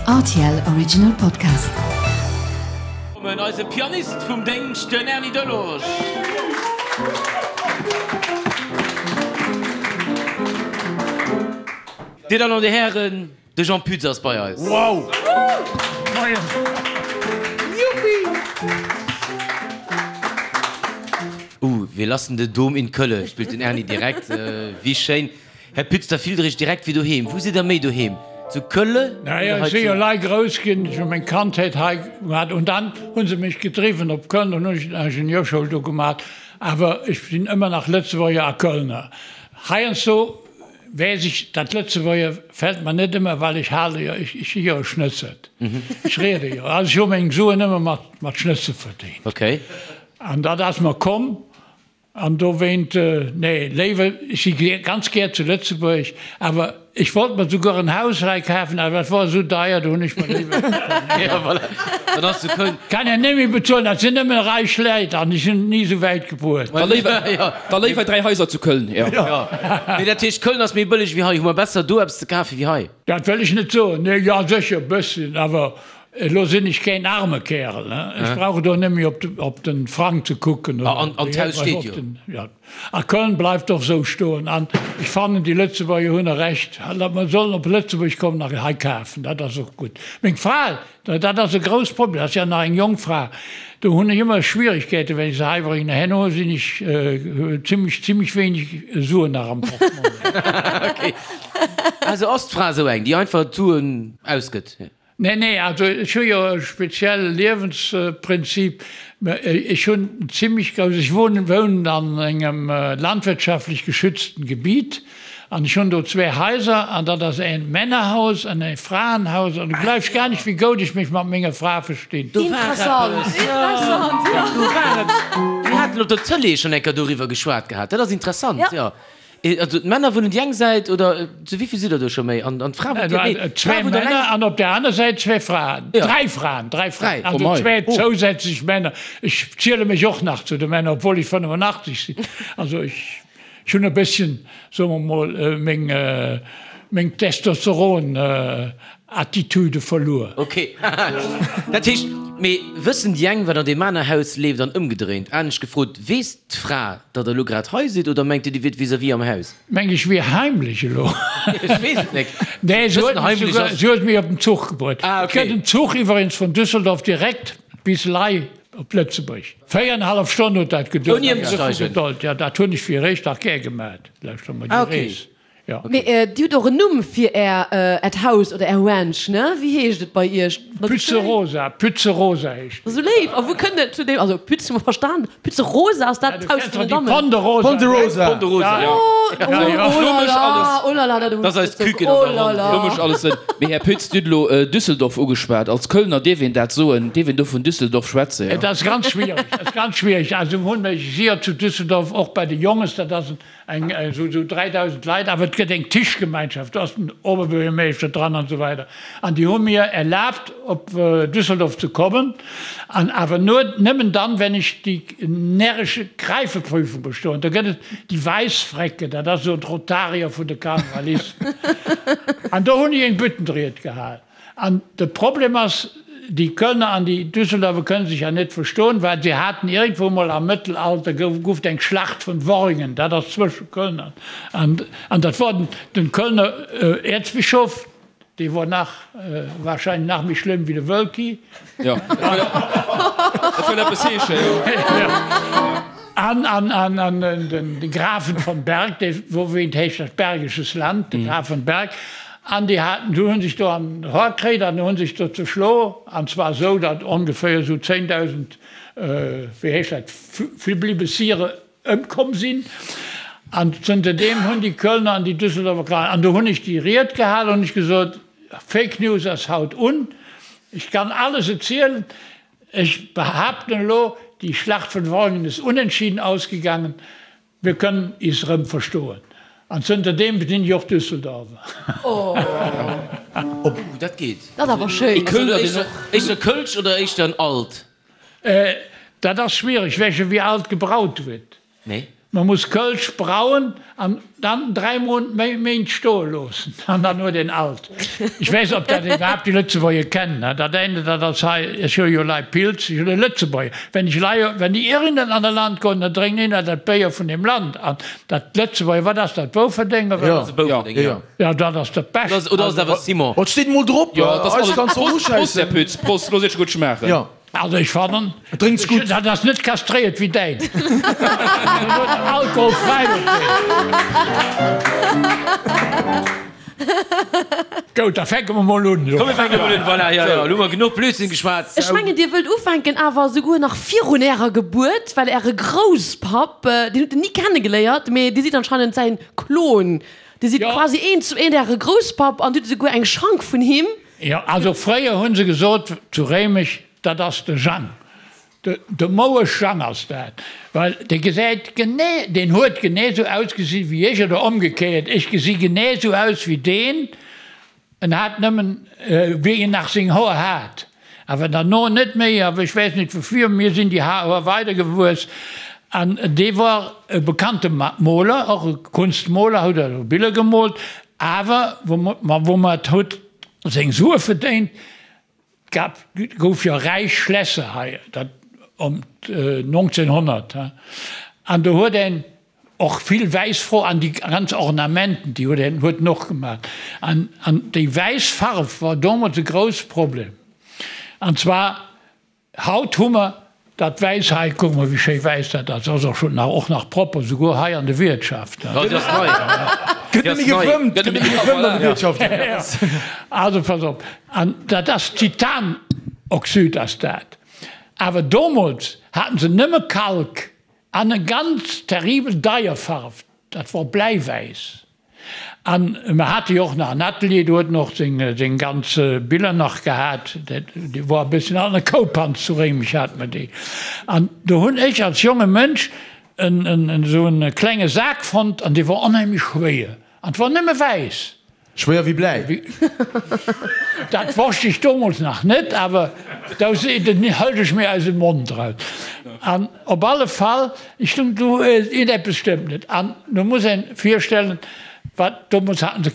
Rtl Original Podcast. Kommen eise Pianist vum Déngscht, den Erny Delage. Dir Dammen an Dir Hären, de Jean Pütz ass bei eis. Wow! Moien! Juppi! Uh, wir lassen den Dom in Kölle, spillt den Erny direkt. Wéi schéin. Här Pütz, da fillt Der Iech direkt wéi doheem. Wou sidd Der méi doheem? Zu Kölle Naja, oder ech hei si jo zu. lei grouss ginn, ech hu meng Kandheet hei gemat und dann hu se mech gedriwwen op Köln, dann hunn ech d'Ingenieurschoul do gemat, awer ech sinn ëmmer nach Lëtzebuerger a Kölner. Heiansdo weess ech, dat Lëtzebuerger fält mer net ëmmer, well ech hale jo, ech si jo e Schnëtzert, ech riede jo, also ech hu meng Suen ëmmer mat mat Schnëtze verdéngt. Okay. An dat ass mer komm An dowéint, nee, léiwer, ech si ganz gär zu Lëtzebuerg, awer ech wollt mer souguer en Haus hei kafen, awer dat wor esou deier, do hunn ech mer léiwer. Ja, voilà, dann ass zu Köln. Kann een net méi bezuelen, dat sinn nëmmen räich Läit an ech hunn et ni esou wäit gebruet. Da léiwer, da léiwer 3 Haiser zu Köln, jo. Jo, mee dat heescht, Köln ass méi bëlleg wéi hei? Hu mer besser do eppes ze kafe wéi hei? Dat wëll ech net soen, nee, jo sécher e bësschen, awer Elo sinn ech keen arme Kärel, he? Ech brauch do net méi op den Frang ze kucken. An d'Haus steet jo. Jo, a Köln bleift och esou stoen. An ech fannen, déi Lëtzebuerger hunn e Recht, mer sollen op Lëtzebuerg kommen a hei kafen, dat ass och gutt. Meng Fra, dat ass e grouss Problem, dat ass jo nach eng jonk Fra, do hunn ech ëmmer Schwierigkeiten, wenn ech se hei bréngen. Herno sinn ech zimlech, zimlech wéineg Suen nach am Portmonnaie. Ok. Also ass d'Fra esou eng, déi einfach d'Suen ausgëtt? Nee, nee, also ech hu jo e spezielle Liewensprinzip. Ech hunn en zimmlech grouss, ech wohnen, wounen an engem landwirtschaftlech geschützten Gebiet an ech hunn do zwee Haiser an dat ass een Männerhaus an ee Fraenhaus an du gleifs gar nicht, wéi goud ech mech mat menger Fra verstinn. Do war Interessant, eppes, jo, interessant, jo. do war eppes. Mir haten op der Tëlee schonn eng Kéier doriwwer geschwat gehat. Dat ass interessant, Ja. jo. Also d'Männer wunnen déi eng Säit, oder zu wéi vill sidd der do scho méi? An d'Fra wunnt jo, nee, d'Fra Zwee wunnt Männer eleng. an op där aner Säit zwee Fraen. Ja. Dräi Fraen, dräi Fraen. Dräi, Also oh mei. zwee zousätzlech Männer. Ech ziele mech och nach zu de Männer, obwuel ech 85 sinn. Also ech, ech hunn e bësschen, soe mer mol, meng, meng Testosteron Attitude verluer. Ok. Dat heescht, mee wëssen déi eng, wat an deem aner Haus leeft an ëmgedréint? Anescht gefrot, weess d'Fra, datt der elo grad hei sidd oder mengt Dir, Dir wiert vis-à-vis am Haus? Meng ech wier heimlech elo? Ech weess et nek. Nee, se huet Bëssen mech heimlech souguer, ass. se huet mech op den Zuch gebruet. Ah, Et ok. gëtt en Zuch iwweregens vun Düsseldorf direkt bis Ley op Lëtzebuerg. Véierenhallef Stonn huet dat geduert. Ouni ëmzesteigen? Jo, dat hunn ech fir eréischt nach gär gemat, lauschter mol, Ah, déi ok. Rees. Ja. Mee Dir hutt och en Numm fir Är, Äert Haus oder Är Ranch, ne? Wéi heescht et bei Iech? Pütze Rosa, Pütze Rosa heescht et. Esou léif! A wou kënnt et zu deem, also Pütz hu mer verstan, Pütze Rosa, ass dat d'Haus vun den Dammen? Ponderosa. Ponderosa. Ponderosa, jo. Oh, oh Lo la mécht la, alles. oh la la, dat Dat ass eist Küken an der Ronn. Lo mécht alles Sënn. Mee Här Pütz, Dir hutt elo Düsseldorf ugeschwat. Als Kölner dierf een dat soen, dierf een do vun Düsseldorf schwätzen, jo? Et ass ganz schwiereg, et ass ganz schwiereg. Also hunn ech si jo zu Düsseldorf och bei de Jonges, dat ass en Eng esou 3.000 Leit, awer et gëtt eng Tischgemeinschaft, do ass den Oberbürgermeeschter dran an esou weider. An déi hu mir erlaabt op Düsseldorf ze kommen, an awer nur, nëmmen dann, wenn ech déi närresche Greifeprüfung bestoen. Do gëtt et déi Wäissfräcke, dat ass esou d'Rotarier vun de Karnevalisten. An do hunn ech eng Büttenried gehal. An de Problem ass, déi Kölner an déi Düsseldorfer kënnen sech ja net verstoen, well se haten iergendwou mol am Mëttelalter gouf gouf et eng Schlacht vun Worringen, dat ass zwësche Köln an an an dat wor den den Kölner Äerzbischof, dee wor nach wahrscheinlech nach méi schlëmm wéi de Wölki. Jo, dat wëll eppes heeschen, jo. An an an an den de Grafen von Berg, dee wouwéint heescht dat Bergisches Land, de Graf von Berg. An déi haten, du hunn sech do an den Hor kritt an hunn sech do zeschlo, an zwar esou, datt ongeféier esou 10.000, wéi heescht dat, Fliblibessiere ëmkomm sinn. An zënter deem hunn déi Kölner an déi Düsseldorfer Kranen, an do hunn ech déi Ried gehalen, hunn ech gesot, Fake News ass haut un, ech kann alles erzielen, ech behaapten elo, déi Schlacht vun Worringen ist unentschieden ausgegangen. Mir kënnen is rëm verstoen. An zënter deem sinn ech och Düsseldorfer. Oh, dat geet. Dat ass awer schéin. Kölner deen och. Éischter Kölsch oder éischter en Alt? Dat ass schwiereg, wech ewéi alt gebraut huet. Nee. Man muss Kölsch brauen an dann 3 Méint stoe loossen an dann huet een alt. Ech weess ob dat iwwerhaapt déi Lëtzebuerger kennen, dat eine dat ass hei, ech hu jo lei Pils, ech hunn e Lëtzebuerger, wenn ech lei, wenn déi ieren an e Land goen, da drénken een dat Béier vun deem Land an dat Lëtzebuerger, wat ass dat, Bouferdeng oder wat? Bouferdeng, jo. Jo, dat ass dat Bescht. Oder ass et awer Simon? Et steet emol drop, eis kanns de och uschäissen. Prost, Här Pütz, Prost, looss iech gutt schmaachen. Jo. Also ech fannen, Et drénkt sech gutt. dat ass net kastréiert wéi däin. Deen huet alkoholfräi op deen. Goud, da fänke mer mol un. Komm mir fänke mol un, voilà, jo, jo, elo hu mer genuch Blödsinn geschwat. Ech mengen dir wëllt ufänken, awer esouguer nach virun ärer Gebuert, well äre Grousspapp, deen hutt der ni kennegeléiert, mee dir sidd anscheinend säin Klon. Dir sidd quasi eent zu eent äre Grousspapp an dir hutt esouguer eng Schank vun him. Jo, also fréier hu se gesot zu Réimech, dat ass de Jang, de Mouesch Jang ass dat, well dee gesäit genee, deen huet genee esou ausgesi wéi ech oder ëmgekéiert, ech gesi genee esou aus wéi deen, en hat nëmmen, wéi en nach seng Hoer hat, awer derno net méi, awer ech weess net woufir, mir sinn déi Hoer weidergewuess an dee war e bekannte Moler, och e Kunstmoler, huet also Biller gemoolt, awer wou mer et huet seng Sue verdéint. Et gouf jo räich Schlässer hei, dat ëm 1900, an do huet een och vill wäiss Fro an déi ganz Ornamenten, déi huet een huet en och gemaach. An déi wäiss Farf war domols e grouss Problem, an zwar Haut hu mer dat wäiss hei, kuck mol wéi schéi wäiss dat ass, ass och schon nach, och nach propper, souguer hei an de Wiertschaften. Déi ass nei. Gëtt nëmme gefëmmt, gëtt nëmme gefëmmt an de Wiertschaften. Also pass op, an dat ass Titanoxyd ass dat, awer domols haten se nëmme Kalk an e ganz terribel deier Farf, dat wor Bläiwäiss. An mer hate jo och nach en Atelier, do huet en och seng ganz Biller nach gehat. Déi wor e bësschen an der Koupanz zu Réimech hate mer déi. An do hunn ech als jonge Mënsch esou e klenge Sak fonnt an dee wor onheemlech schwéier an 't wor nëmme wäiss. Schwéier wéi Bläi. Dat wosst ech domols nach net, awer do hëlt ech mir aus dem Mond eraus. An op alle Fall, ech stung do, iergendeppes stëmmt net. An do muss een virstellen, wat, domols haten se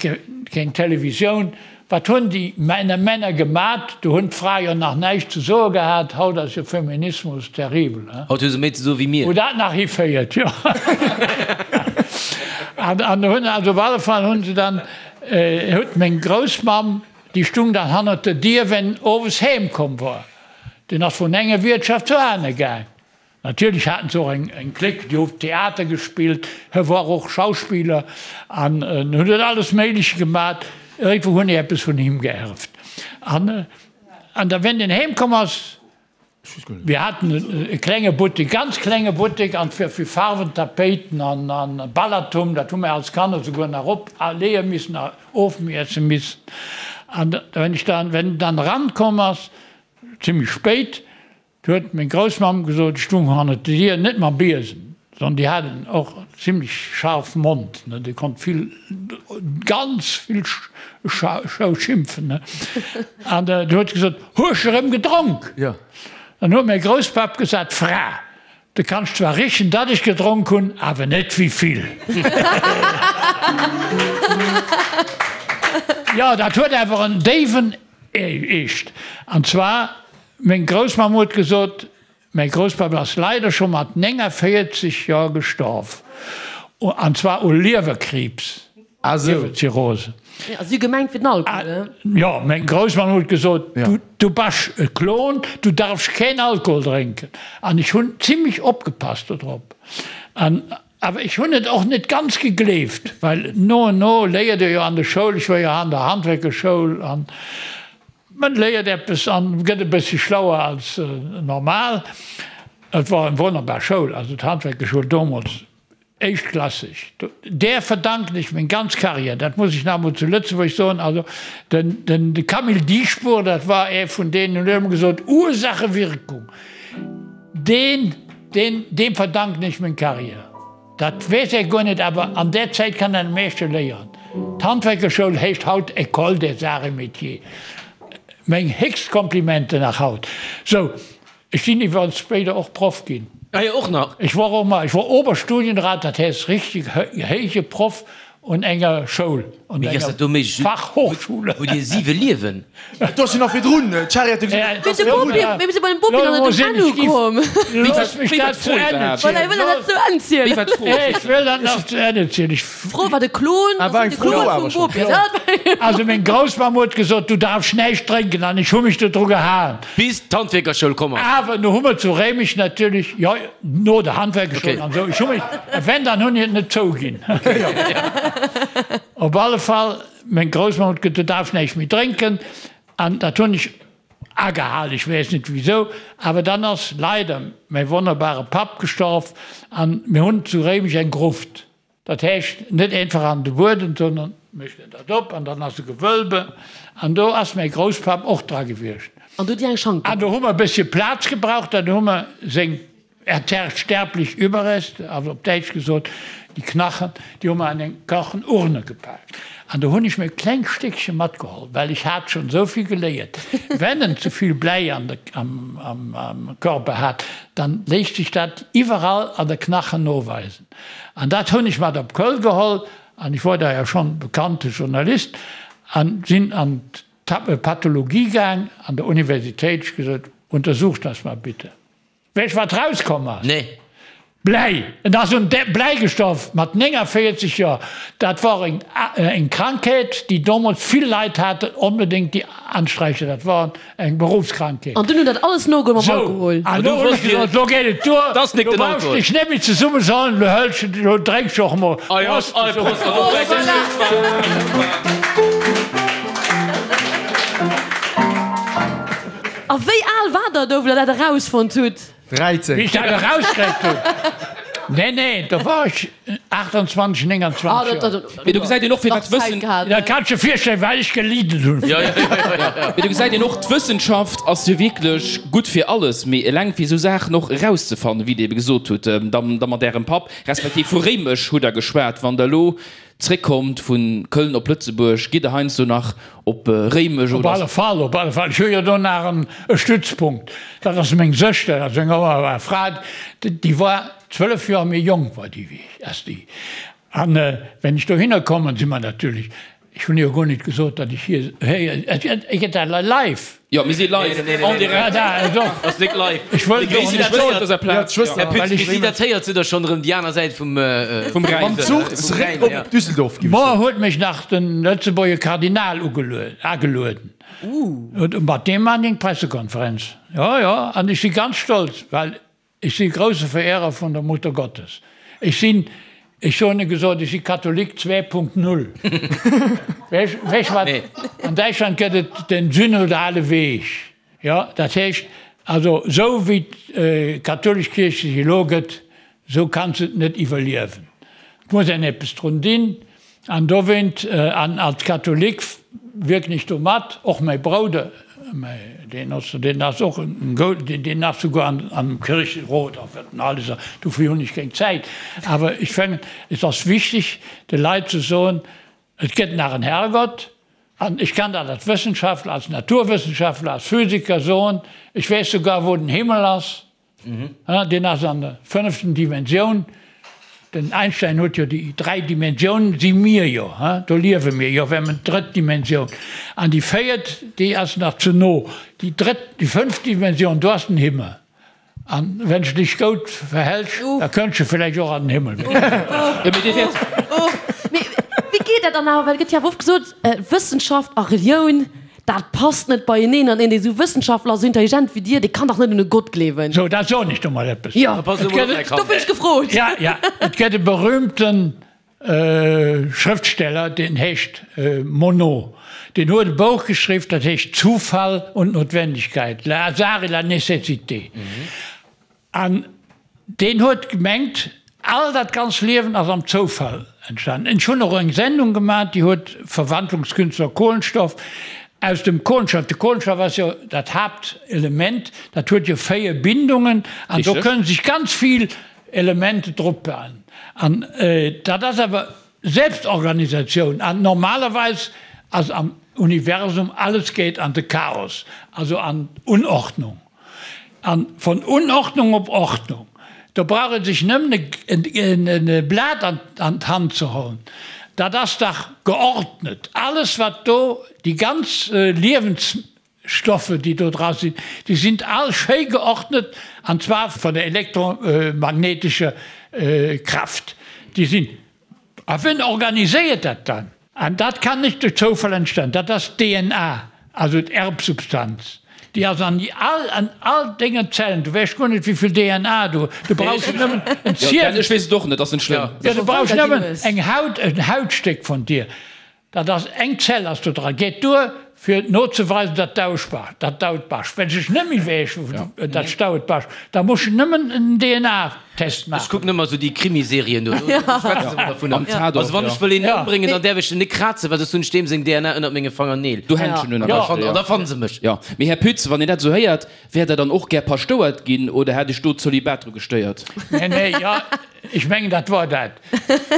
keng Televisioun, wat hunn déi Männer Männer gemat? Do hunn d'Frae jo nach näischt ze soe gehat. Haut ass jo Feminismus terribel, he? Haut hu se méi ze soe wéi mir. Wou dat nach hiféiert, jo. An do hunn, also op alle Fall hunn se dann, huet meng Groussmamm, déi stung dann hannert der Dier, wenn owes heem komm wor. Deen ass vun enger Wiertschaft zur aner gaang. Natierlech haten se och eng Clique, déi huet Theater gespillt, hie wor och Schauspiller an hunn huet alles Méigleche gemat. Iergendwou hunn ech eppes vun him geierft. An da wenn en heem komm ass, Mir haten e klenge Buttek, ganz klenge Buttek, an fir fir Farwen, Tapéiten an Ballatum, dat hu mir als Kanner souguer nach op leeë missen a ofmiesse missen. An wenn ech dann, wenn en dann erankomm ass, zimmlech spéit, du huet meng Groussmamm gesot, ech stung hannert der Dier, net mam Biesen, sondern déi hat en och zimmlech scharf Mond, ne, déi konnt vill, ganz vill schou schimpfen, ne. An du huet se gesot, Hues erëm gedronk? Jo. Dann huet mäi Grousspapp gesat, Fra, du kanns zwar richen, datt ech gedronk hunn, awer net wéi vill. Jo, dat huet awer en déiwen Eescht. An zwar, meng Groussmamm huet gesot, Mäi Grousspapp ass leider scho mat 49 Joer gestorf, an zwar u Liewerkriibs, Liewerzirrhose. Ah, si hu gemengt fir den Alkohol, he? Jo, meng Groussmamm huet gesot, Du basch e Klon, du darfsch keen Alkohol drénken. An ech hunn zimlech opgepasst dodrop. An awer ech hunn et och net ganz gegleeft, well no en no léiert ee jo an der Schoul, ech war jo an der Handwerkerschoul, an Man léiert eppes an gëtt e bëssi schlauer als normal. Et war eng wonnerbar Schoul, also d'Handwerkerschoul domols, éischtklasseg. Där verdanken ech meng ganz Carrière, dat muss ech nach emol zu Lëtzebuerg soen. Also den de Camille Dieschbourg, dat war ee vun deenen, huet ëmmer gesot, Ursache, Wirkung. Deen, deen, deem verdanken ech meng Carrière. Dat weess ee guer net, awer an där Zäit kann een am meeschte léieren. D'Handwerkerschoul heescht haut École des Arts et Métiers. Meng héchst Komplimenten nach haut. Sou, ech sinn iwwerens spéider och Proff ginn. Ah jo, och nach. Ech wor och mol, ech wor Oberstudienrat, dat heescht richtig héije Proff un enger Schoul, un Mee wéi ass enger dat do méiglech? Fachhochschule. Hutt Dir siwe Liewen? Do ass jo nach virdrun, d'Shari hat jo gesot, Mee de Bopi, mee mir si bei dem Bopi nach net um Enn ukomm. Looss mech dat zu Enn Voilà, hie wëll dat nach zu Enn zielen. Wéi war d'Fro? Ech wëll dat nach zu Enn zielen. Ech. D'Fro war de Klon, Ah, war eng de Fro Klon awer vum schon. Bopi. Ja, dat war eng Fro. Also meng Groussmamm huet gesot, du darfst näischt drénken an ech hu mech dodru gehalen. Bis d'Handwierkerschoul komm ass. Awer no hu mer zu Réimech natierlech, jo, no der Handwerkerschoul Okay. an esou, ech hu mech, wenn, dann hunn ech et net zouginn. Op alle Fall, meng Groussmamm huet gesot, du darfst näischt méi drénken an dat hunn ech agehalen, ech weess net wisou, awer dann ass leider mäi wonnerbare Papp gestorf an mir hunn zu Réimech eng Gruft. Dat heescht, net einfach an de Buedem, sondern mécht een dat op an dann ass e Gewölbe an do ass mäi Grousspapp och dra gewiescht. An do hutt Dir eng Schank An do hu mer e bëssche Plaz gebraucht, dann hu mer seng sterblich Überreste, also op Däitsch gesot, déi Knachen, déi hu mer an eng Kachenurne gepaakt. An do hunn ech mir e klengt Stéckche matgeholl, well ech hat schonn esou vill geléiert, wenn en ze vill Bläi an de, am, am, am Körper hat, dann léisst sech dat iwwerall an de Knachen noweisen. An dat hunn ech mat op Köln geholl, an ech wor da jo schonn bekannte Journalist, an sinn an d'Pathologie gaang an der Universitéit, ech gesot, Untersucht das mal bitte. Weess wat rauskomm ass? Nee. Bläi! En ass un Bläi gestorf mat 49 Joer. Dat wor eng Krankheet, déi domols vill Leit haten, onbedéngt déi Ansträicher, dat wor eng Berufskrankheet. An dunn hunn dat alles nogeholl mam Alkohol. Sou, an lo hunn ech gesot, lo geet et duer, lo brauchs de dech net méi zesummesollen, lo hëls de, lo drénks de och emol. Prost! A wéi al war der do, wou der dat erausfonnt hutt? 13. Wéi ech dat erauskritt hunn? Nee, nee, do war ech 28, 29 Joer. Mee do gesäit een och, fir wat d'Wëssen. Da kanns de virstellen, wat ech gelidden hunn. Mee do gesäit een och, d'Wëssenschaft ass jo wierklech gutt fir alles, mee eleng fir esou Saachen och erauszefannen, wéi Der ebe gesot hutt, da mat Ärem Papp, respektiv vu Réimech hutt Der geschwat, wann Der elo Zréckkommt vu Köln op Lëtzebuerg, gitt Der heiansdo nach op Réimech Op oder? alle Fall, op alle Fall. Ech hu jo do nach en Stützpunkt. Dat ass meng Sëschter, dat ass eng wonnerbar Fra. Déi war 12 Joer méi jonk war déi wéi ech, ass déi. An wenn ech dohinner kommen, si mer natierlech, ech hunn jo guer net gesot, datt ech hir, héier, gëtt dat live? Jo, mir si live, en direct. Ass nik live. Ech wëll Mir gréissen dech wëssen op dëser Plaz. Här Pütz, bis si dat héiert, sidd Der schonn erëm déi aner Säit vum Vum Rhäin. Mam Zuch zeréck op Düsseldorf gi. Moar huet mech nach de Lëtzebuerger Kardinal agelueden. Mat deem maan eng Pressekonferenz. Jo, jo, an ech si ganz stolz, well Ech si grousse Verehrer vun der Mutter Gottes. Ech sinn, ech soen e gesot, ech si Katholik 2.0. Weess wat, an Däitschland gëtt et den synodale Weg. Jo, dat heescht also, esou wéi d'kathoulesch Kierch sech elo gëtt, esou kann se et net iwwerliewen. Et muss een eppes drun dinn. An dowéint, an als Katholik wierken ech do mat, och mäi Brouder, deen ass, deen ass och en gou, deen ass souguer an am Kircherot a wat en alles ass, dofir hunn ech keng Zäit. Awer ech fannen, et ass wichteg, de Leit ze soen, et gëtt nach en Herrgott, an ech kann dat als Wëssenschaftler, als Naturwëssenschaftler, als Physiker soen, ech weess souguer, wou den Himmel ass. Deen ass an der fënneften Dimensioun. Den Einstein huet jo déi 3 Dimensiounen, si mir jo, do liewe mir jo, wir haben d'drëtt Dimensioun. An déi véiert, déi ass nach ze no. Déi drëtt, déi fënneft Dimensioun, do ass den Himmel. An wenn s de dech goud verhältst, da kënns de vläicht och an den Himmel. Mee wéi geet dat dann awer? Well et gëtt jo awer oft gesot, Wëssenschaft a Relioun, Dat passt net beieneen, an een dee sou wëssenschaftlech ass, sou intelligent wéi dir, dee kann dach net un e Gott gleewen. Sou, dat soen ech do mol eppes. Jo, dofir hunn ech gefrot. Ja, ja, et gëtt e berühmte Schrëftsteller, deen heescht Monod. Deen huet e Bouch geschriww, dat heescht Zufall und Notwendigkeit, Le hasard et la nécessité. An deen huet gemengt, all dat ganz Liewen ass am Zoufall entstanen. Ech hunn och eng Sendung gemaach, déi huet Verwandlungskünstler Kohlenstoff, aus dem Kohlenstoff, de Kohlenstoff ass jo dat Haaptelement, dat huet jo 4 Bindungen an do kënnen sech ganz vill Elemente drop bauen. An dat ass awer Selbstorganisatioun an normalerweis ass am Universum alles geet an de Chaos, also an d'Unordnung. An von Unordnung op Ordnung. Do brauch ee sech nëmmen e Blat an d'Hand ze hollen, dat ass dach geordnet. Alles wat do, déi ganz Liewensstoffe déi do dra sinn, déi sinn all schéi geordnet, an zwar vun der elektromagnetescher Kraft. Déi sinn A wien organiséiert dat dann? An dat kann net duerch Zoufall entstoen. Dat ass d'DNA, also d'Erbsubstanz. Déi ass an all, an all dengen Zellen. Du weess guer net, wéi vill DNA du, du brauchs nëmmen en Ziel. Ech weess et och net, ass net schlëmm. Jo, du brauchs nëmmen eng Haut, en Hautstéck vun dir. Dat ass eng Zell ass do dran. Geet duer fir nozeweisen, datt d'Aus bass, datt d'Haut bass. Wenn sech net méi wäsch, datt d'Haut bass, da muss je nëmmen en DNA-Test Ech maachen. kucken ëmmer esou déi Krimiserien do, do schwätze se ëmmer dovunner. Am Tatort, Also wann ja. ech wëll een ëmbréngen, dann däerf ech en net krazen, well soss hunn ech deem seng DNA ënnert menge Fangerneel. Do Händschen hunn am Ja, beschten, an da fannen se mech. Jo, mee Här Pütz, wann een dat esou héiert, wäert Der dann och gär Paschtouert ginn oder hätt Iech do d'Zölibat dru gestéiert? Nee, nee, jo, ech mengen, dat wor dat.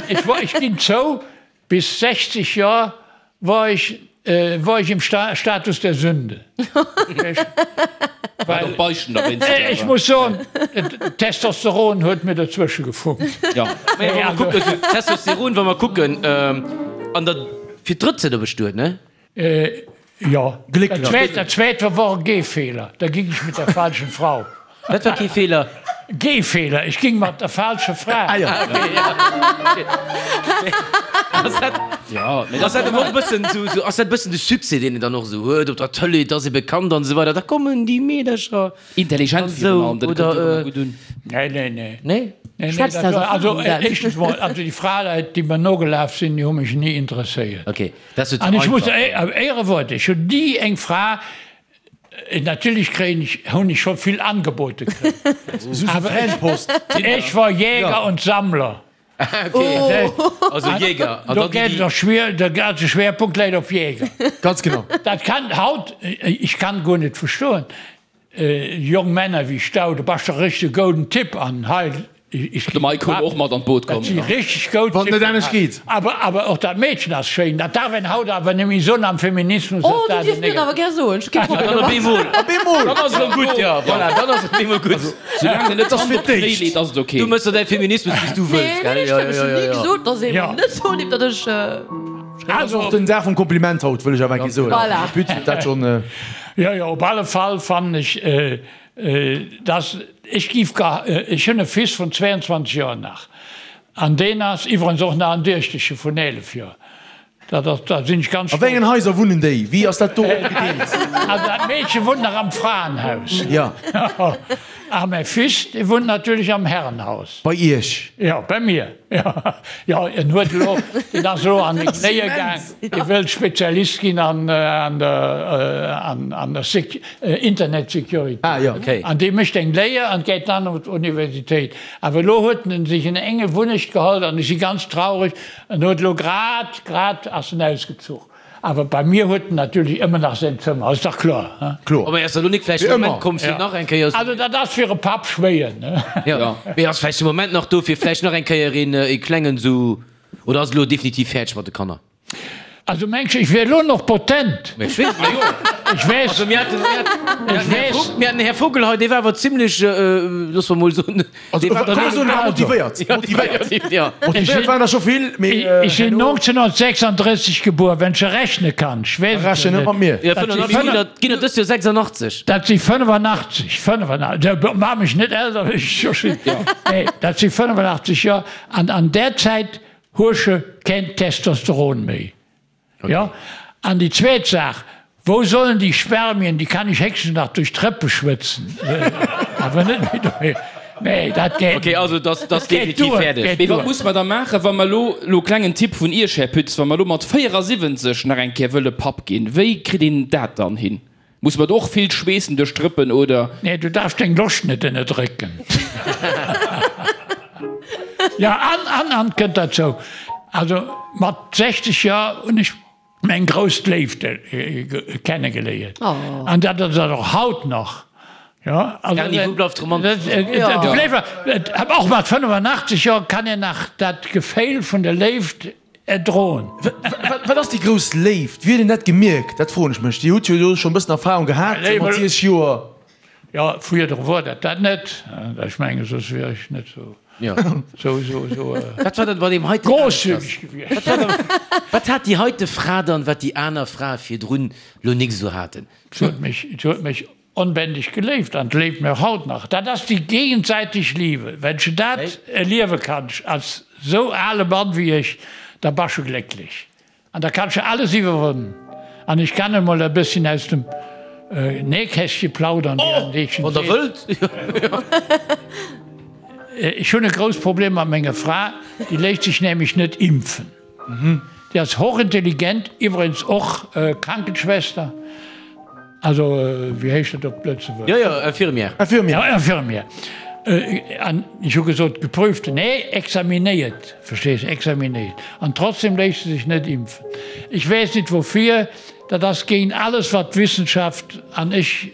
Ech wor, ech ginn zou, Bis 60 Joer wor ech wor ech im Status der Sünde. War och Beichten derwéinst. Ech muss soen, d'Testosteron huet mir dozwësche gefunkt. Jo. Mä wa mer kucken, esou Testosteron, wa mer kucken, an der fir d'drëtt se der bestuet, ne? Jo. Glécklech. Dat zweet war wor e Gehfehler, da ging ech mit der falschen Frau. Wat war kee Feeler? Gehfehler, ech ging mat der falscher Fra. Ah jo. Ass dat, Jo, mee ass dat awer och e bëssen esou, esou, ass dat e bëssen de Succès, deen een dann och esou huet op der Tëlee, et ass ee bekannt an esou weider, da kommen déi Meedercher Intelligent an virun esou, allem, dat oder, kënnt jo och ëmmer gutt un. Nee, nee, nee. Nee? Nee, nee, Schwätzt dat aus war, also Erfahrung, Dan. éischtens mol, also déi Fraleit, déi mer nogelaf sinn, déi hu mech ni interesséiert. Okay. Dat ass jo ze An ech muss, einfach. Éierewuert, ech hunn ni eng Fra, natierlech kréien ech, hunn ech scho vill Angebote kritt, awer ech, ech war Jäger und Sammler. Okay, also Jäger. An Do dann geet déi, et och schwier, de ganze Schwerpunkt läit op Jäger. Ganz genau. Dat kann haut, ech kann guer net verstoen, Jong Männer wéi Stau, du bass der richtege gouden Typ an hei ech De Mike huet och mat an d'Boot komm. Dat si richteg goud Wann et net Typen anescht geet. Awer awer och dat Meedchen ass schéin. Dat darf een haut awer net méi soen am Feminismus Oh, ass du dat dierfs en mir et awer negativ. gär soen, ech hu kee Problem Dann op domat. eemol. Op eemol! Dann ass et erëm gutt, jo, voilà, dann ass et op eemol gutt. Soulaang en net d'Hand op d'Knéi leet, ass et ok. Du mëss der däi Feminismus wéi s du wëlls, Nee, gell? nee, Jo, ech jo, hunn jo, ni jo. gesot, dass ee Jo. mer net soen dierf, datt ech. Also och den Dag vum Kompliment haut, wëll ech awer eng Kéier soen. Voilà. Här Pütz huet dat schonn. Jo, jo, op alle Fall fannen ech, dass, ech giff gar, ech hunn e Fils vun 22 Joer nach, an deen ass iwwerens och nach en Duechteche vun 11 Joer, dat ass, da sinn ech ganz A wéi engen stolz. Haiser wunnen déi? Wéi ass dat do opgedeelt? Also dat Meedche wunnt nach am Fraenhaus. Jo. A mäi Fils, dee wunnt natierlech am Herrenhaus. Bei Iech? Jo, bei mir. Jo, en huet elo, deen ass elo an den Knéie gaang, dee wëllt Spezialist ginn an der an der Internet Security. Ah jo. An dee mécht eng Léier an geet dann op d'Universitéit. Awer elo huet en sech en enge Wunnecht geholl an ech si ganz traureg, en huet elo grad, grad ass en ausgezuch. Awer bei mir huet en natierlech ëmmer nach säin Zëmmer, ass dach kloer, he? Kloer. Mee ass da lo nik vläicht de Moment komm fir nach eng Kéier. Also dat ass fir e Papp schwéier, ne? Jo, mee ass vläicht de Moment nach do fir vläicht nach eng Kéier een ee klengen sou, oder ass et elo definitiv fäerdeg mat de Kanner? Also mengs de ech wier elo noch potent? Mee ech weess, ma jo. Ech weess. Also mir haten, mir haten, Ech weess. mir haten den Här Vogel hei, dee war awer zimlech, loosse mer mol soen, Also, kann man soen, war motivéiert. Motivéiert. Ja. Motivéiert waren der scho vill, mee Ech sinn 1936 gebuer, wann s de rechne kanns. Ech weess et Rechne jo net mat net. mir. Ja, Dat si 85 ginn der, ginn der dëst Joer 86. Dat si 85, 85, maach mech net elter wéi ech scho sinn. Nee, dat si 85 Joer an an där Zäit hues de keen Testosteron méi. Jo, an déi zweet Saach, Wou sollen déi Spermien, déi kann ech héchstens nach duerch d'Rëppe schwëtzen, awer net méi doheem. Nee, dat geet Ok, also dat ass Dat geet definitiv duer, fäerdeg. geet Mee wat duer. muss mer da maachen, wa mer elo, elo klengen Tipp vun Iech, Här Pütz, wa mer elo mat 74 nach eng Kéier wëlle Papp ginn, wéi kritt een dat dann hin? Muss mer do och vill schweessen duerch d'Rëppen, oder? Nee, du darfs deng Loscht net ënnerdrécken. Jo, an, an, an kënnt derzou, also mat 60 Joer hunn ech meng grouss Léift kennegeléiert. An dat ass dat och haut nach. Jo, also Erni, wou bleift d'Romantik? Och mat 85 Joer kann een nach dat Geféil vun der Léift Erdroen. Wat ass déi grouss Léift? Wéi huet een dat gemierkt? Dat froen ech mech. Dir hutt jo do schonn e bëssen Erfahrung gehat mat 60 Joer. Jo, virdru wor dat dat net. Ech mengen, soss wier ech net sou, sou, sou, sou Wat war dann bei deem heiten großzügig gewiescht. Wat hat déi heite Fra dann, wat déi aner Frae virdrun lo nik esou haten? Se huet mech, se huet mech onbändig geléift an léift mech och haut nach. Dat ass déi gegenseitig Liebe. Wenn s de dat erliewe kanns als sou ale Mann wéi ech, da bass de glécklech. An da kanns de alles iwwerwannen. An ech kann emol e bësschen aus dem Nähkästche plaudern, wéi an Deetschen Wann der seet. wëllt. Ech hunn e grousst Problem mat menger Fra, déi léisst sech nämlech net impfen. Déi ass hochintelligent, iwwregens och Krankenschwester. Also, wéi heescht dat op Lëtzebuergesch? Jo, jo, Infirmière. Infirmière. Ja, Infirmière. An ech hu gesot, geprüfte, nee, examinéiert, verstees, examinéiert. An trotzdem léisst se sech net impfen. Ech weess net woufir, dat ass géint alles, wat d'Wissenschaft, an ech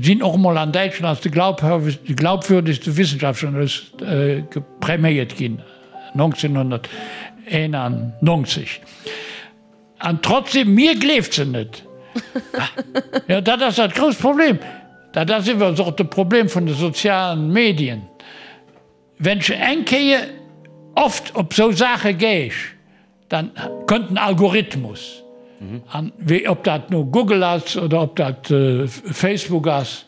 sinn och emol an Däitschland als de glaubwürdegste Wissenschaftsjournalist präméiert ginn, 1991. An trotzdem, mir gleeft se net. Jo, dat ass dat grousst Problem. Dat ass iwwerens och de Problem vun de sozialen Medien. Wenn s eng Kéier oft op sou Saache geesch, dann kënnt en Algorithmus. An wéi ob dat no Google ass oder ob dat Facebook ass.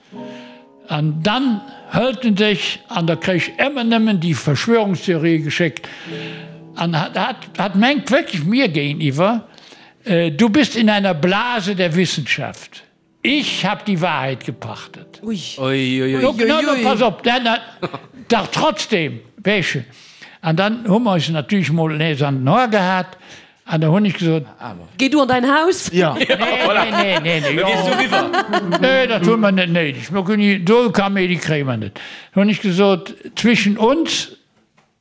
An dann hëlt en sech an da kréich ëmmer nëmmen déi Verschwörungstheorië geschéckt. An hat hat mengt wierklech mir géintiwwer, Du bist in einer Blase der Wissenschaft, ich hab die Wahrheit gepachtet. Ui. Ui. Pass op, dach trotzdem, weess. An dann hu mer eis natierlech mol nees an den Hoer gehat. An da hunn ech gesot. Géi du an däin Haus. Ja. Nee, nee, nee, nee. Da gees du eriwwer. Nee, dat hu mer net néideg. Mir kënnen, do Kaméidi kréie mer net. Da hunn ech gesot, Zwischen uns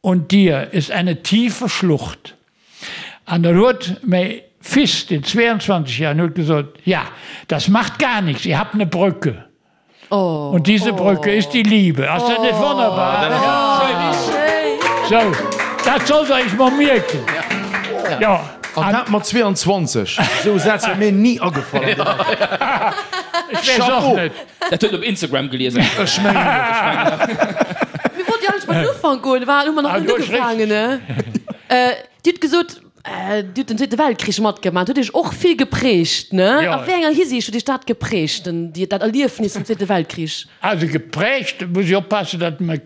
und dir ist eine tiefe Schlucht. An dann huet mäi Fils, deen 22 Joer, huet gesot, Ja, das macht gar nichts, ihr habt eine Brücke. Und diese Brücke ist die Liebe. Ass dat net wonnerbar? Sou, dat sollt Der Iech mol mierken. Jo. An dat mat 22. Esou e Saz wär mir ni agefall an deem Alter. Ech weess och net. Dat huet en op Instagram gelies. Ech mengen et. Mir wollten jo eigentlech bei den Ufank goen, war hu mer nach net ugefaangen, ne? Dir hutt gesot, Dir hutt den Zweete Weltkrich matgemaach, huet Iech och vill geprägt, ne? A wéi enger Hisiicht huet Iech dat geprägt, den, déi, dat Erliefnis vum Zweete Weltkrich? Also geprägt, muss ech oppassen, datt mer,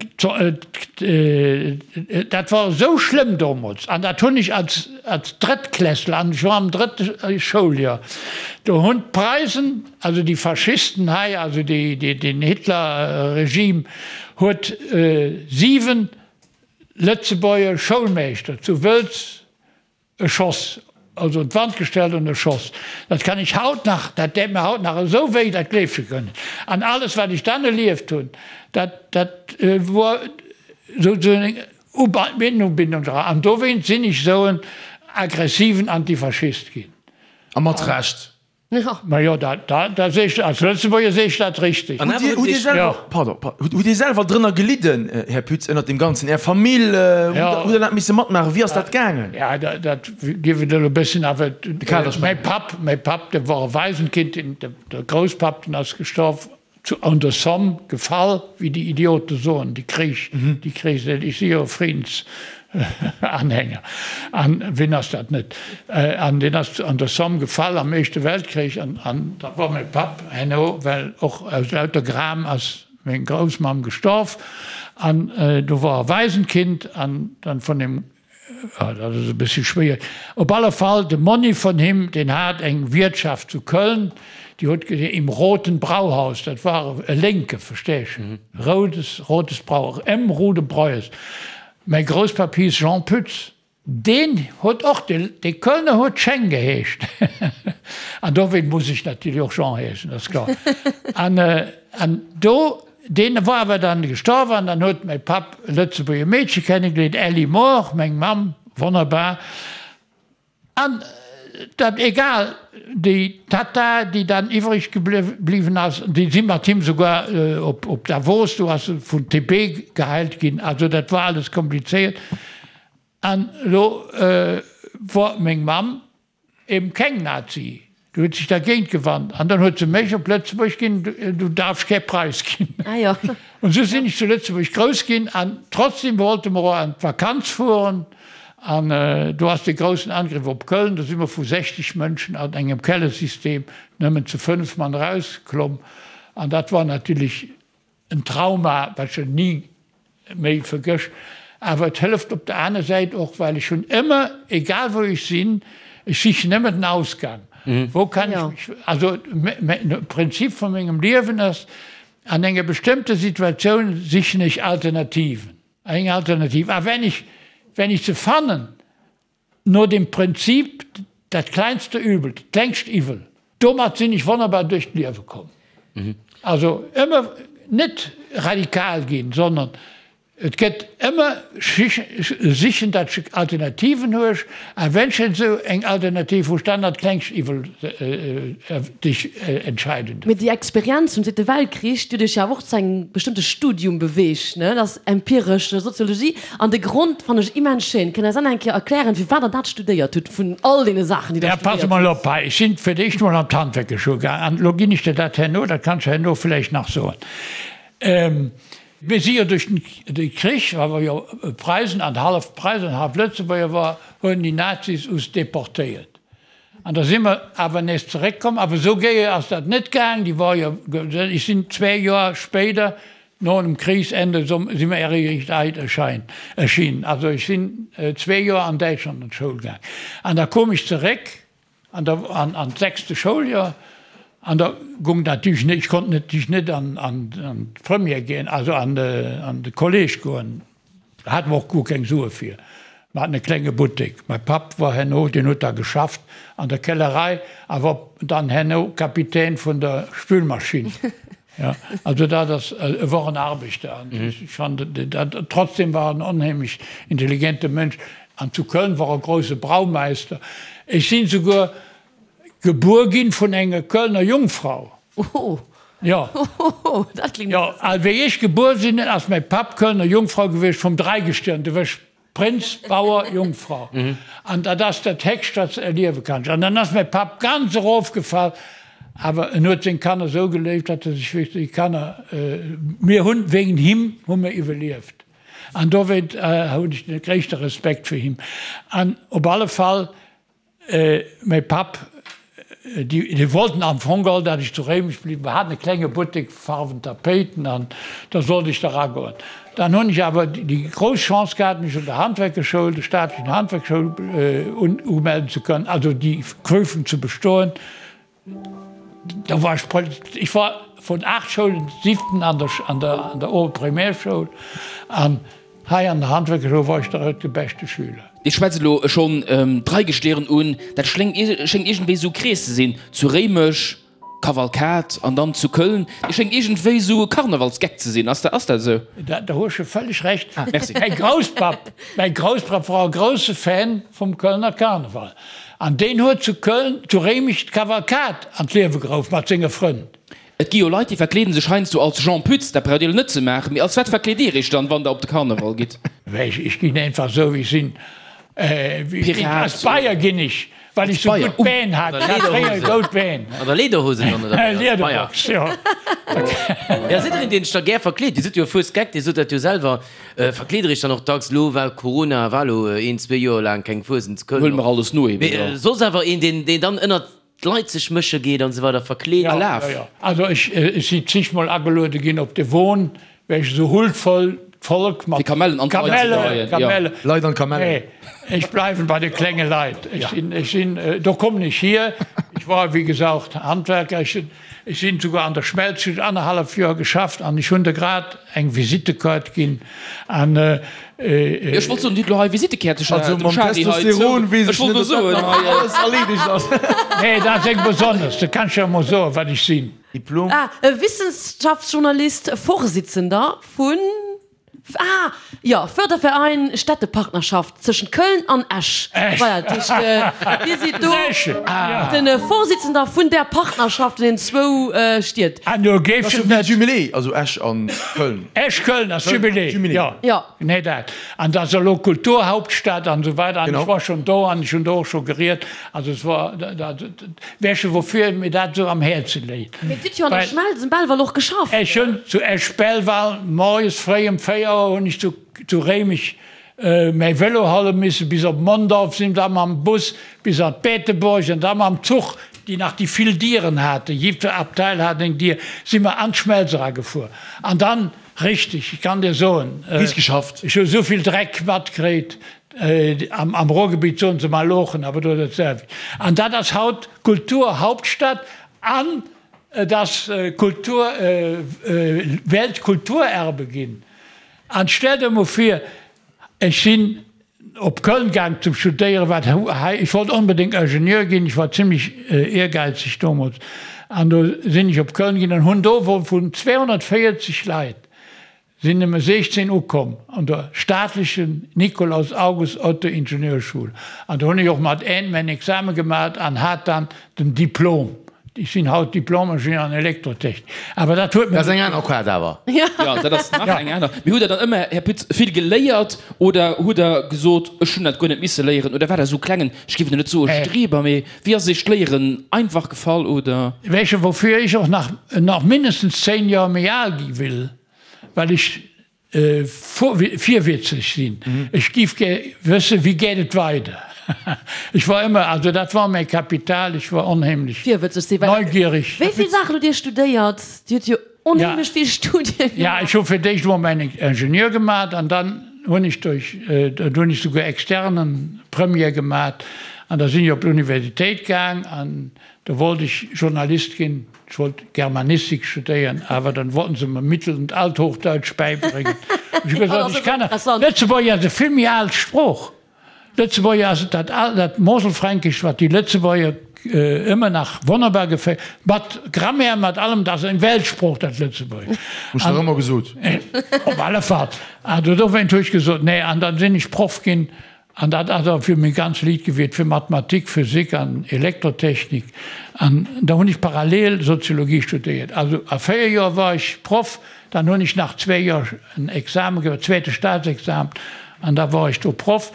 dat war esou schlëmm domols, an dat hunn ech als, als Drëttklässler, an ech war am drëtte Schouljoer, do hunn d'Preisen, also déi Faschisten hei, also déi, déi, den Hitler-Regime huet 7 Lëtzebuerger Schoulmeeschter zu Wëlz erschoss, also un d'Wand gestellt an erschoss. Dat kann ech haut nach, dat däit mir haut nach esou wéi, dat gleefs de guer net. An alles wat ech dann erlieft hunn, dat, dat wor souzesoen eng Ubindung dra. An dowéinst sinn ech esou en aggressiven Antifaschist ginn. A mat Recht. Majo, dat, dat sees de, als Lëtzebuerger sees de dat richteg. Hutt Dir, hutt Dir selwer, pardon, hutt Dir selwer drënner gelidden, Här Pütz, ënnert deem Ganzen? Är Famill, hutt Der dat misse matmaachen? Wéi ass dat gaangen? Ja, dat, dat géif et elo e bëssen, awer mäi Papp, mäi Papp, dee wor e Waisenkind, deen, de Grousspapp, deen ass gestorf Zu an der Somme gefall, wéi déi Idiote soen, déi Krich, déi Kris, ech si jo e Friedensanhänger, an wien ass dat net, an deen ass an der Somme gefall am Éischte Weltkrich, an an da wor mäi Papp herno, well och aus lauter Gram ass meng Groussmamm gestorf, an do wor e Waisenkind, an dann vun deem Dat ass e bëssi schwéier. Op alle Fall, de Monni vun him, deen hat eng Wiertschaft zu Köln, déi huet ge Im Roten Brauhaus, dat war e Lénke, versteesch, Roudes, Rotes Brau, M. Rude Breues. Mäi Grousspapp hiiss Jean Pütz, deen huet och, dee Kölner huet Scheng geheescht. An dowéint muss ech natierlech och Jean heeschen, dat ass kloer. An, an do Deen war awer dann gestorwen an dann huet mäi Papp e Lëtzebuerger Meedche kennengeléiert, Elli Mohr, meng Mamm, wonnerbar. An dat egal, déi Tatta, déi dann iwwreg gebliwwen ass, déi si mat him souguer op Davos, do ass se vun TB geheilt ginn, also dat war alles komplizéiert. An elo wor meng Mamm Eben keng Nazi. Du huet sech dergéint gewannt an dann huet se mech op Lëtzebuerg ginn, du darfs kee Preis ginn. Ah jo. Und sou sinn ech zu Lëtzebuerg grouss ginn an trotzdem wollte mer och an d'Vakanz fueren an do ass dee groussen Angriff op Köln, do si mer vu 60 Mënschen an engem Kellersystem nëmmen zu 5 Mann erauskomm an dat war natierlech En Trauma, wat ech ni méi vergësch. Awer et hëlleft op der aner Säit och, well ech hunn ëmmer, egal wou ech sinn, ech sichen ëmmer den Ausgang. Wou kann ech mech, also de Prinzip vu mengem Liewen ass, an enger bestëmmter Situatioun sichen ech Alternativen, eng Alternativ. A wenn ech, wenn ech se fannen, No dem Prinzip dat kleinste Übel, dat klengst Iwwel. Domat sinn ech wonnerbar duerch d'Liewe komm. Also ëmmer net radikal ginn, sondern et gëtt ëmmer sichen, datt ech Alternativen huech, a wenn ech esou eng Alternativ hu, dann dat klengst Iwwel dech entscheiden. Mee déi Experienz vum Zweete Weltkrich, déi huet iech jo awer och zu engem bestëmmte Studium beweegt, ne? Dat ass empiresch Soziologie. An de Grond fannen ech immens schéin. Kënnt eis dann eng Kéier erklären, firwat der dat studéiert hutt, vun all deene Saachen, déi der Ja, pass studéiert emol hutt? op hei, ech sinn fir d'éischt emol an d'Handwerkerschoul gaang, an elo ginn ech der dat herno, dat kanns du herno vläicht nach soen. Mir si jo duerch de Krich, well mer jo Preisen an hallef Preisen an hallef Lëtzebuerger war, hunn déi Nazis us deportéiert. An da si mer awer nees zeréckkomm, awer esou géi ass dat net gaang, déi war jo, ech sinn zwee Joer spéider No dem Kriegsende si mer eréischt erschinn. Also ech sinn zwee Joer an Däitschland an d'Schoul gaang. An da koum ech zeréck an der an d'sechste Schouljoer an da gung dat natierlech net, ech konnt natierlech net an d'Première ginn, also an de Kolleg goen. Da hate mer och guer keng Sue fir. Mer haten e klenge Buttek. Mäi Papp war herno, deen huet da geschafft an der Kellerei a war dann herno Kapitän vun der Spülmaschinn. Jo, also dat ass, e wor en Arbechter an ech fannen dat, trotzdem war en onheemlech intelligente Mënsch an zu Köln wor e grouse Braumeister. Ech sinn souguer Gebuer ginn vun enger Kölner Jungfrau. Oh. Jo. Dat klingt Jo, a wéi ech gebuer sinn, ass mäi Papp Kölner Jungfrau gewiescht vum Dreigestirn, du wësch Prënz, Bauer, Jungfrau. An dat ass dat Héchst, wat s de erliewe kanns. An dann ass mäi Papp ganz erofgefall, awer en huet seng Kanner esou geléift, datt e sech wierklech déi Kanner, mir hunn, wéinst him hu mir iwwerlieft. An dowéint hunn ech de gréisste Respekt fir him. An op alle Fall Mäi Papp, déi wollten am Fong geholl, dat ech zu Réimech bliwwen. Mer haten e klenge Buttek, Farwen, Tapéiten, an da sollt ech da ragoen. Dann hunn ech awer déi grouss Chance gehat, mech un der Handwerkerschoul, der staatlechen Handwerkschoul, umelden ze kënnen, also déi Prüfung ze bestoen. Da war ech, ech war vun 8 Schoulen siwten an der, an der, an der Oberprimärschoul an hei an der Handwerkerschoul war ech der de beschte Schüler. Dir schwätzt elo schonn d'Dreigestirn un, dat schléngt, schéngt iergendwéi esou e Krees ze sinn, zu Réimech, Kavalkad an dann zu Köln. Dir schéngt iergendwéi esou e Karnevalsgeck ze sinn, ass dat, ass dat esou? Da, da hues de völleg Recht. Ah, merci. Mäi Grousspapp, mäi Grousspapp war e grousse Fan vum Kölner Karneval. An deen huet zu Köln, zu Réimech d'Kavalkad an d'Liewe geruff mat senge Frënn. Et gi jo Leit, déi verkleeden sech heiansdo als Jean Pütz, dat braucht Dir elo net ze maachen, mee als wat verkleet Dir Iech dann, wann Der op de Karneval gitt? Ech ginn einfach esou wéi ech sinn. Pirat? Als Bayer ginn ech, well ech sou gutt Been hat. Ech hat fréier goud Been. An der Lederhose dann, oder wéi? Als Bayer? Lederbox, jo. Jo, sidd Der een, deen sech da gär verkleet? Dir sidd jo e Fuesgeck, Dir sot dat jo selwer. Verkleet der iech dann och dacks? Lo war Corona, war lo een, zwee Joer laang keng Fuesent zu Köln. Huele mer alles no eben, jo. Mee soss awer een, deen, deen dann ënnert d'Leit sech mësche geet an esou weider, verkleet? Ja, Alaf. ja, ja. Also ech, ech si zigmol ageluede ginn op de Won, well ech esou huldvoll d'Volk mat. Fir Kamellen an d'Leit ze Kamelle, dreien, jo. Kamelle. Leit an Kamellen. Nee, ech bleiwen bei de klenge Leit. Ech sinn, ech sinn, do kommen ech hier. Ech war, wéi gesagt, Handwerker. Ech sinn, ech sinn souguer an der Schmelz, hunn annerhallef Joer geschafft an ech hunn der grad eng Visittekaart ginn an. Ech wollt soen, Dir hutt elo hei Visittekäertecher Also dem mam Charly hei zou. Testosteron weess Ech ech wollt net, elo ob dat soen, nach hei. alles erleedegt ass. Nee, dat ass eng besonnesch, da kann ech jo emol soen, wat ech sinn. Diplom. Ah, e Wissenschaftsjournalist, Vorsitzender vun. Ah, jo, Förderverein Städtepartnerschaft zwëschent Köln an Esch. Esch. Voilà, dat heescht, Dir sidd do Esch, ja. de Vorsitzender vun där Partnerschaft vun den zwou Stied. An do géif Dat ass et jo wéi net. Jumelé, also Esch an Köln. Esch-Köln ass Jumelé, Jumelé. jo. Jo. Nee, dat. An dat ass elo Kulturhauptstadt an esou weider. An Genau. ech war schonn do an ech hunn do och scho geriet. Also et war, dat, weess de woufir mir dat esou am Häerze léit? Mee Dir hutt jo an der Well. Schmelz um Belval och geschafft. Ech hunn zu Esch-Belval moies fréi ëm 4 Auer hunn ech zu, zu Réimech mäi Vélo hale misse bis op Mondorf, sinn da mam Bus bis an d'Beetebuerg an da mam Zuch, déi nach déi vill Dieren haten, jiddwer Abteil hat eng Dier, si mer an d'Schmelz eragefuer. An dann, richtig, ich kann dir soen, Riicht geschafft. ech hu esou vill Dreck matkritt, am Ruhrgebiet soen se Malochen, awer do dat selwecht. An dat ass haut Kulturhauptstadt an et ass Kultur, Weltkulturerbe ginn. An stell der emol vir, ech sinn op Köln gaang zum Studéieren, wat hei, ech wollt onbedéngt Ingenieur ginn, ech war zimlech ehrgeizeg domols, an do sinn ech op Köln ginn an hunn do wou vun 240 Leit sinn nëmme 16 ukomm an der staatlechen Nikolaus August Otto Ingenieurschule. An do hunn ech och mat N mäin Exame gemat an hat dann den Diplom. Ech sinn haut Diplom-Ingenieur an Elektrotechnik, awer dat huet Dat ass mir. eng aner Quart awer. Jo, dat ass nach eng aner. Mee hutt Der dann ëmmer, Här Pütz, vill geléiert oder hutt Der gesot, ech hunn dat guer net misse léieren? Oder war Der esou klengen, ech géif elo net soe Streber, mee wéi ass Iech d'Léieren einfach gefall, oder? Weess woufir ech och nach nach mindestens 10 Joer méi al gi will, well ech virwitzeg sinn. Ech giff gär wëssen, wéi geet et weider? Ech war ëmmer, also dat war mäi Kapital, ech war onheemlech Virwëtzeg sinn, well neugierig. wéi vill Saachen hutt Dir studéiert? Dir hutt jo onheemlech vill Studien Ja, gemaach. ech hu fir d'éischt emol mäin Ingenieur gemaach an dann hunn ech duerch, do hunn ech souguer externen Premier gemaach an da sinn ech op d'Universitéit gaang an do wollt ech Journalist ginn. Ech wollt Germanistik studéieren, awer dann wollten se mer Mittel und Althochdeutsch bäibréngen. Ech hu gesot, ech kann Lëtzebuerger ass e vill méi al Sprooch. Lëtzebuerger ass dat al, dat Moselfränkescht, wat déi Lëtzebuerger ëmmer nach wonnerbar gefält, mat Grammaire, mat allem, dat ass eng Weltsprooch, dat Lëtzebuergesch. Hu ech dach ëmmer gesot. Op alle Fall. Also dowéint hu ech gesot, nee, an dann sinn ech Proff ginn An dat ass och fir meng ganz Liit gewiert, fir Mathematik, Physik an Elektrotechnik. An da hunn ech parallel Soziologie studéiert. Also a 4 Joer war ech Proff, dann hunn ech nach zwee Joer en Examen gemaach, zweete Staatsexamen, an da war ech do Proff.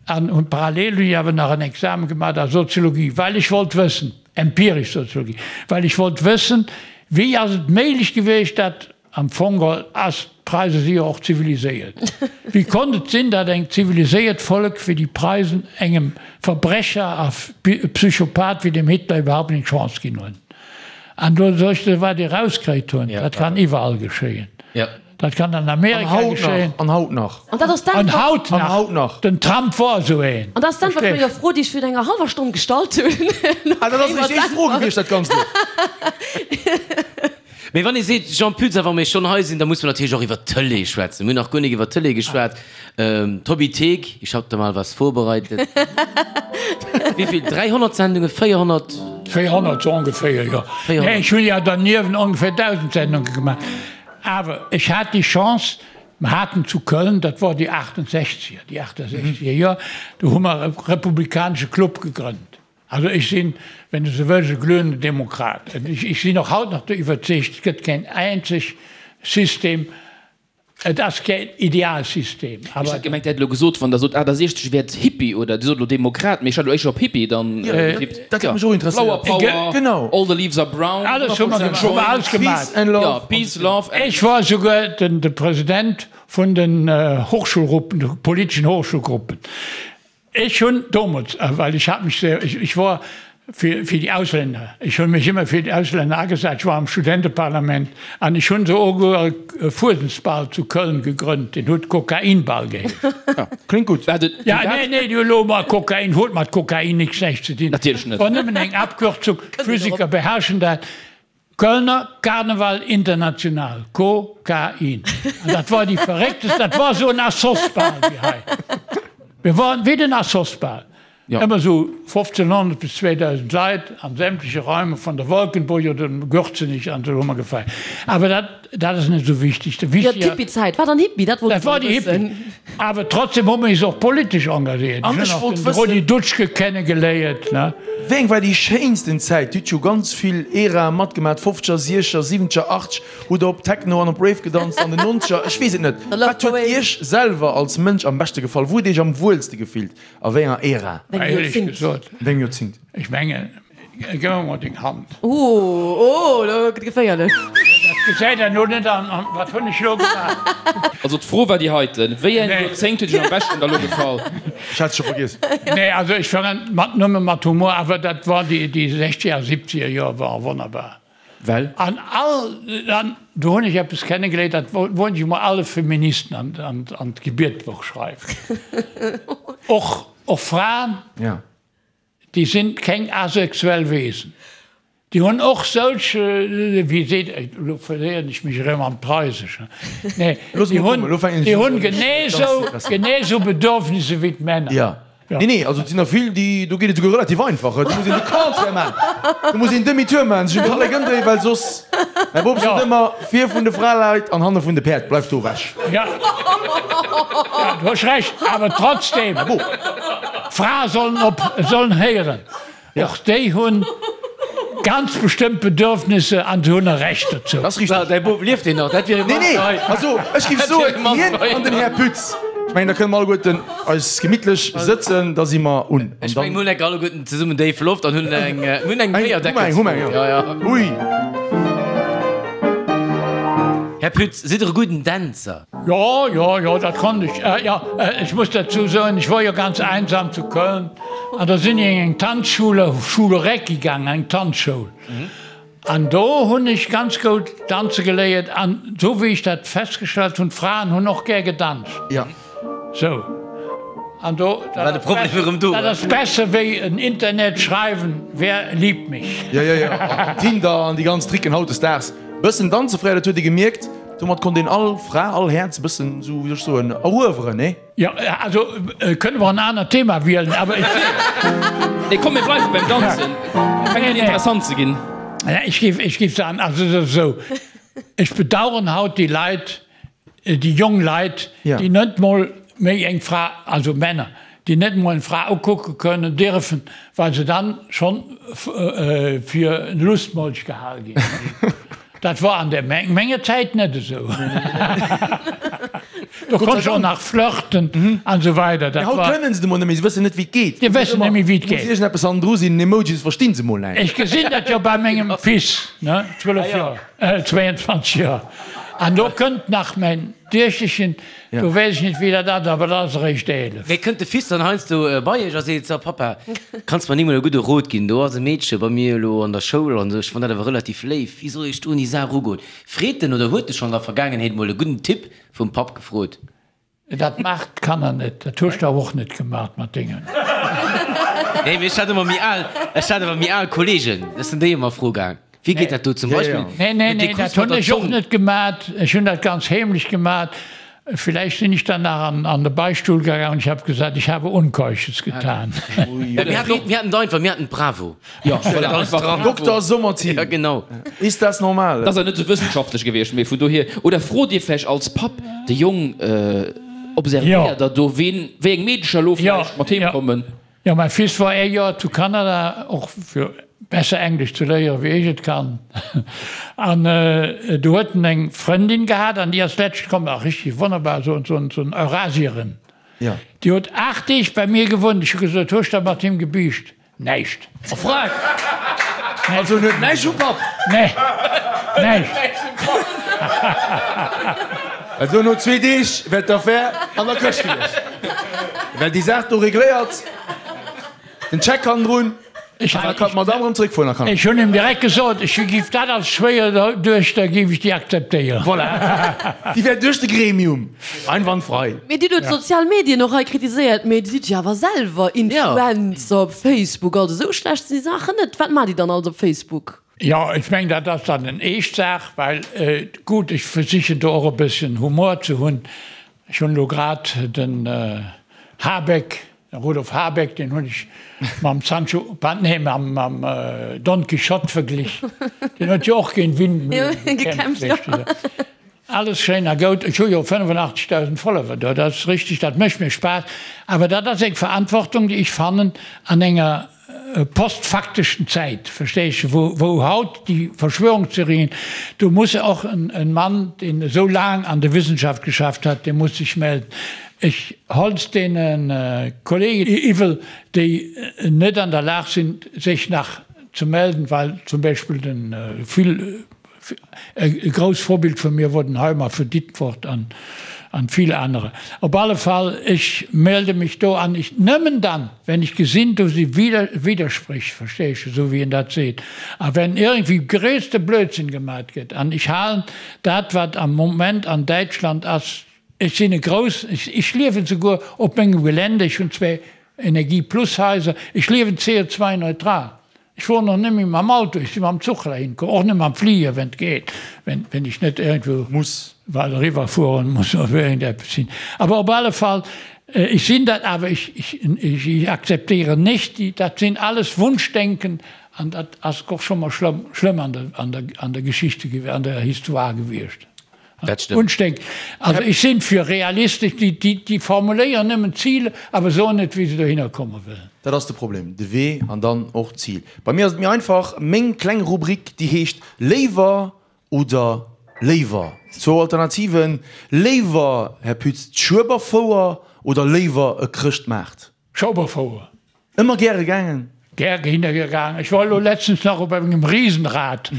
An hunn parallel hunn ech awer nach en Examen gemaach a Soziologie, well ech wollt wëssen, empiresch Soziologie, well ech wollt wëssen, wéi ass et méiglech gewiescht, dat Am Fong geholl ass, d'Preise si jo och ziviliséiert. Wéi konnt et sinn, datt eng ziviliséiert Vollek wéi déi Preisen engem Verbrecher a Psychopath wéi dem Hitler iwwerhaupt eng Chance ginn hunn? An do soll ech der wat déi erauskréit hunn, dat kann iwwerall geschéien. Dat kann an Amerika geschéien. An haut nach. An dat ass An d'Äntwert. haut An haut nach. Den Trump wor esou een. An dat ass d'Äntwert vun Verstees? enger Fro, déi ech virun enger hallwer Stonn gestallt hunn. Ah, dat ass eréischt éischt Fro gewiescht, dat Ganzt elo. Mee wann ee seet, Jean Pütz, a wa mir schonn hei sinn, da muss mer natierlech och iwwer d'Tëlee schwätzen. Mir hunn nach guer nik iwwer d'Tëlee geschwat. D'Hobbythek, ich hab da mal was vorbereitet. Wéi vill? 300 Sendungen? 400? 400 sou ongeféier, jo. 400. Nee, ech hunn jo derniewent ongeféier 1.000 Sendunge gemaach. Awer ech hat déi Chance, mer haten zu Köln, dat wor déi 68er, déi 68er Joer, do hu mer e republikanesche Club gegrënnt. Also ech sinn, wenn du sou wëlls, e glühenden Demokrat. Ech sinn och haut nach iwwerzeegt, et gëtt keen eenzeg System, et ass keen Idealsystem, Ech awer. hat gemengt, Dir hätt elo gesot, wann Der sot 68 wäert Hippie oder Dir sot elo Demokrat, mee ech hat elo éischter op Hippie dann getippt. Dat hätt mech och Flower interesséiert. Power, Genau. All the leaves are brown. Alles hu mer gemaach, hu mer alles gemaach. Peace and love. Jo, Peace, Love and. Ech war souguer de President vun den Hochschulgruppen, de politeschen Hochschulgruppen. Ech hunn domols, well ech hat mech sehr, ech wor fir fir déi Auslänner, ech hunn mech ëmmer fir déi Auslänner agesat, ech war am Studenteparlament an ech hunn souguer e Fuesensball zu Köln gegrënnt, deen huet Kokainball geheescht. Kléngt gutt. Wat et Ja, nee, nee, du elo mol Kokain huet mat Kokain nix näischt ze dinn. Natierlech net. War nëmmen eng Abkürzung, Physiker beherrschen dat. Kölner Karneval International, Ko-Ka-In. An dat war déi verrécktest, dat war esou en Assos-Bal wéi hei. Mir waren wéi den Assos-Bal. Ëmmer esou 1500 bis 2000 Leit an sämtleche Räume von der Wolkenburg oder dem Gürzenich an esou hu mer gefeiert. Awer dat, dat ass net esou wichteg. De Jo, wichtiger. d'Hippie-Zäit war dann Hippie, dat wollt Dat ech war mol déi wëssen. Hippie. Awer trotzdem hu mer is och politesch engagéiert. An Ech ech hunn och wollt den wëssen. Rudi Dutschke kennegeléiert, ne. Wéi eng war déi schéinsten Zäit? Dir hutt jo ganz vill Erae matgemaat, Fofzeger, Siechzeger, Siwwenzeger, Achtzeger. Hutt der op Techno an op Rave gedanzt an den Nonzeger? Ech weess et net. The Love Wat huet Parade. Iech selwer als Mënsch am beschte gefall? Wou hutt Dir Iech am wuelste gefillt? A wéi enger Ära? Wéi engem Éierlech Joerzéngt? gesot, Wéi engem Joerzéngt? ech mengen, gëff mer mol deng Hand. Oh, oh, lo gëtt geféierlech. Dat gesäit een elo net an. An wat hunn ech elo gemaach? Also d'Fro war déi heiten, Wéi eng Nee. Joerzéngt huet Iech am beschten da lo gefall? Ech hat et scho vergiess. Nee, also ech war mat, nëmme mat Humor, awer dat war déi, déi sechzeger a siebzeger Joer waren wonnerbar. Well? An all, an do hunn ech eppes kennegeléiert, dat wollt ech emol alle Feministen an, an, an d'Gebietbuch schreiwen. Och, och Fraen, Ja. déi sinn keng asexuell Wesen. Déi hunn och solch, wéi seet, elo verléieren ech mech erëm am Preiseschen, nee, Looss déi mol hunn, kommen, elo fänken ech déi un, hunn genee esou, genee esou Bedürfnisse wéi d'Männer. Ja. Nee, nee, also et sinn der vill, déi, do geet et esouguer relativ einfach. Do muss een de Contraire maachen. Do muss een Demi-tour maachen, sech um Kallek ëmdréien, well soss, mäi Bop sot ëmmer, vir vun de Fraleit an hanne vun de Päerd, bleift do ewech. Ja, ja, du hues Recht, awer trotzdem, d'Frae sollen op, sollen héieren. Och déi hunn ganz bestëmmt Bedürfnisse an se hunn e Recht dozou. Dat ass richteg. Däi Bop, lieft deen nach? Dat wier e Nee, nee, Mann hei. also ech géif soen, hien an den Här Pütz, ech mengen, da kënne mer alleguerten eis gemittlech sëtzen, da si mer un. An Ech mengen, dann. mir hunn enk alleguerten zesummen déif Loft an hunn eng, mir hunn eng Eng, hu mer eng, hu mer eng, Béierdeckelsfro. Ja, ja. Ui. Här Pütz, sidd Der e gudden Dänzer? Jo, jo, jo, dat konnt ech. Jo, ech muss derzou soen, ech wor jo ganz einsam zu Köln an da sinn ech an eng Tanzschule, Schule Recki gaangen, eng Tanzschoul. An do hunn ech ganz goud danze geléiert an esou wéi ech dat festgestallt hunn, d'Fraen hunn och gär gedanzt. Jo. Sou. An do, War de Problem erëm do? dat ass besser wéi en Internet schreiwen, Wer liebt mich? Jo, jo, jo. Tinder an déi ganz Tricken hautdesdaags. Bëssen danze fréier, dat huet ee gemierkt. Domat konnt een all Fra, all Häerz e bëssen esou, wéi soll ech soen, erueweren, nee? Jo, also kënne mer en anert Thema wielen, awer ech. Nee, komm, mir bleiwe beim Danzen. Fänkt un interessant ze ginn. Ech géif, ech géif soen, also et ass esou, ech bedauern haut déi Leit, déi jong Leit, déi net mol méi eng Fra, also Männer, déi net mol eng Fra ukucke kënnen, dierfen, well se dann schonn fir en Lustmolch gehal ginn. Dat war an der menger Zäit net esou. Do konnt ech och nach flirten an esou weider. Mee haut kënnen se et emol net méi, se wëssen net wéi et geet. Déi wëssen net méi wéi et geet. Muss iergendeppes hannendru sinn, en Emoji, se verstinn se mol näischt. Ech gesinn dat jo bei mengem Fils, ne, 12 Joer, 22 Joer. An do kënnt nach mäin Duechterchen, do weess ech net wéi dat ass, awer dat ass eréischt 11. Mee kënnt de Fils dann heiansdo bei iech a seet, So Pappa, kanns mer ni mol e gudde Rot ginn, do ass e Meedche bei mir elo an der Schoul an esou, ech fann dat awer relativ léif, wéi soll ech do un déi Saach erugoen? Freet en oder huet e schonn an der Vergaangenheet mol e gudden Tipp vum Papp gefrot? Dat maacht d'Kanner net. Dat hues de awer och net gemaat mat dengen. Nee, mee ech hat ëmmer méi al, ech hat awer méi al Kollegen, ech sinn déi ëmmer fro gaang, wéi geet dat do zum Beispill Nee, nee, mit dee nee, Kuss dat mat hunn der ech och Zong? net gemaat. Ech hunn dat ganz heemlech gemaat. Villäicht sinn ech dann nach an, an de Beichtstuhl gaangen an ich hab gesagt, ich habe Unkeusches getan. Ja, mir haten och, mir haten et einfach, mir haten d'Bravo. Ja, voilà, einfach. Dokter Sommerthin, Ja, genau. Ist das normal? Dat ass awer net esou wëssenschaftlech gewiescht, mee vun dohier. Oder frot Dir vläicht als Papp de Jong, observéiert Der do, ween, wéi eng Meedecher elo vläicht mat heem kommen? Jo, mäi Fils war ee Joer zu Kanada, och fir besser Englesch ze léieren, wéi ech et kann. An do huet en eng Frëndin gehat an déi ass letscht komm, ach richtig wonnerbar, esou en Eurasierin. Déi huet 8 Deeg bei mir gewunnt. Ech hu gesot, Hues der mat him gebiischt? Näischt. A Frag! Also en huet näischt vum Papp? Nee, näischt. Also no zwee Deeg wär d'Affär an der Këscht gewiescht. Wär déi Saach do regléiert, den Check hannendrun, an da kann d'Madame erëm zréckfueren a Kanada. Ech hunn him direkt gesot, ech giff dat als Schwéierduechter giff ech déi akzeptéieren. Voilà, déi wär duerch de Gremium einwandfrei. Mee Dir hutt d'sozial Medien och hei kritiséiert, mee Dir sidd jo awer selwer Influencer op Facebook, also esou schlecht sinn déi Saachen net. Wat maacht Dir dann alles op Facebook? Jo, ech mengen dat ass dann en eescht Saach, well gutt, ech versichen do och e bësschen Humor ze hunn. Ech hunn elo grad den Habeck. Den Rudolf Habeck, deen hunn ech mam Sancho, nee, mam Don Quichotte verglich. Deen huet jo och géint Windmühlen gekämpft, weess de. Alles schéin a goud. Ech hu jo 85.000 Follower do, dat ass richteg, dat mécht mir Spaass. Awer dat ass eng Verantwortung, déi ech fannen an enger postfakteschen Zäit, verstees de, wou, wou haut déi Verschwörungstheorien, do muss och en Mann, deen esou laang an der Wissenschaft geschafft hat, dee muss sech melden. Ech holls deene Kollegen iwwel, déi net an der Lag sinn, sech nach ze melden, well zum Beispill den vill E grousst Vorbild vu mir wor den Heimer vu Ditfurth an vill anerer. Op alle Fall, ech melde mech do an ech nëmmen dann, wenn ech gesinn, do si Widdersprich, versteesch, esou wéi en dat seet, a wenn iergendwéi gréisste Blödsinn gemat gëtt. An ech halen dat, wat am Moment an Däitschland ass, ech sinn e grouss, ech liewen souguer op mengem Gelände, ech hunn zwee Energie-Plus-Haiser, ech liewen CO2-neutral. Ech fueren och net méi mam Auto, ech si mam Zuch heihin komm, och net mam Fliger, wenn et geet, wenn, wenn ech net iergendwou Muss. well eriwwer fueren muss oder iergendeppes sinn. Awer op alle Fall, ech sinn dat, awer ech, ech, ech akzeptéieren nicht déi, dat sinn alles Wunschdenken an dat ass och scho mol schlëmm, schlëmm an der, an der, an der Geschichte, an der Histoire gewiescht. Dat stëmmt. Unsteck. Also ech sinn fir realistesch, déi, déi, déi formuléieren nëmmen Ziler, awer soen net, wéi se dohinner komme wëllen. Dat ass de Problem, de Wee an dann och d'Zil. Bei mir ass et méi einfach, meng kleng Rubrik, déi heescht Léiwer oder léiwer. Zwou Alternativen, Léiwer, Här Pütz, d'Schueberfouer oder léiwer e Chrëschtmaart? Schueberfouer. Ëmmer gäre gaangen? Gär hinne gaangen. Ech war elo letztens nach op engem Riesenrad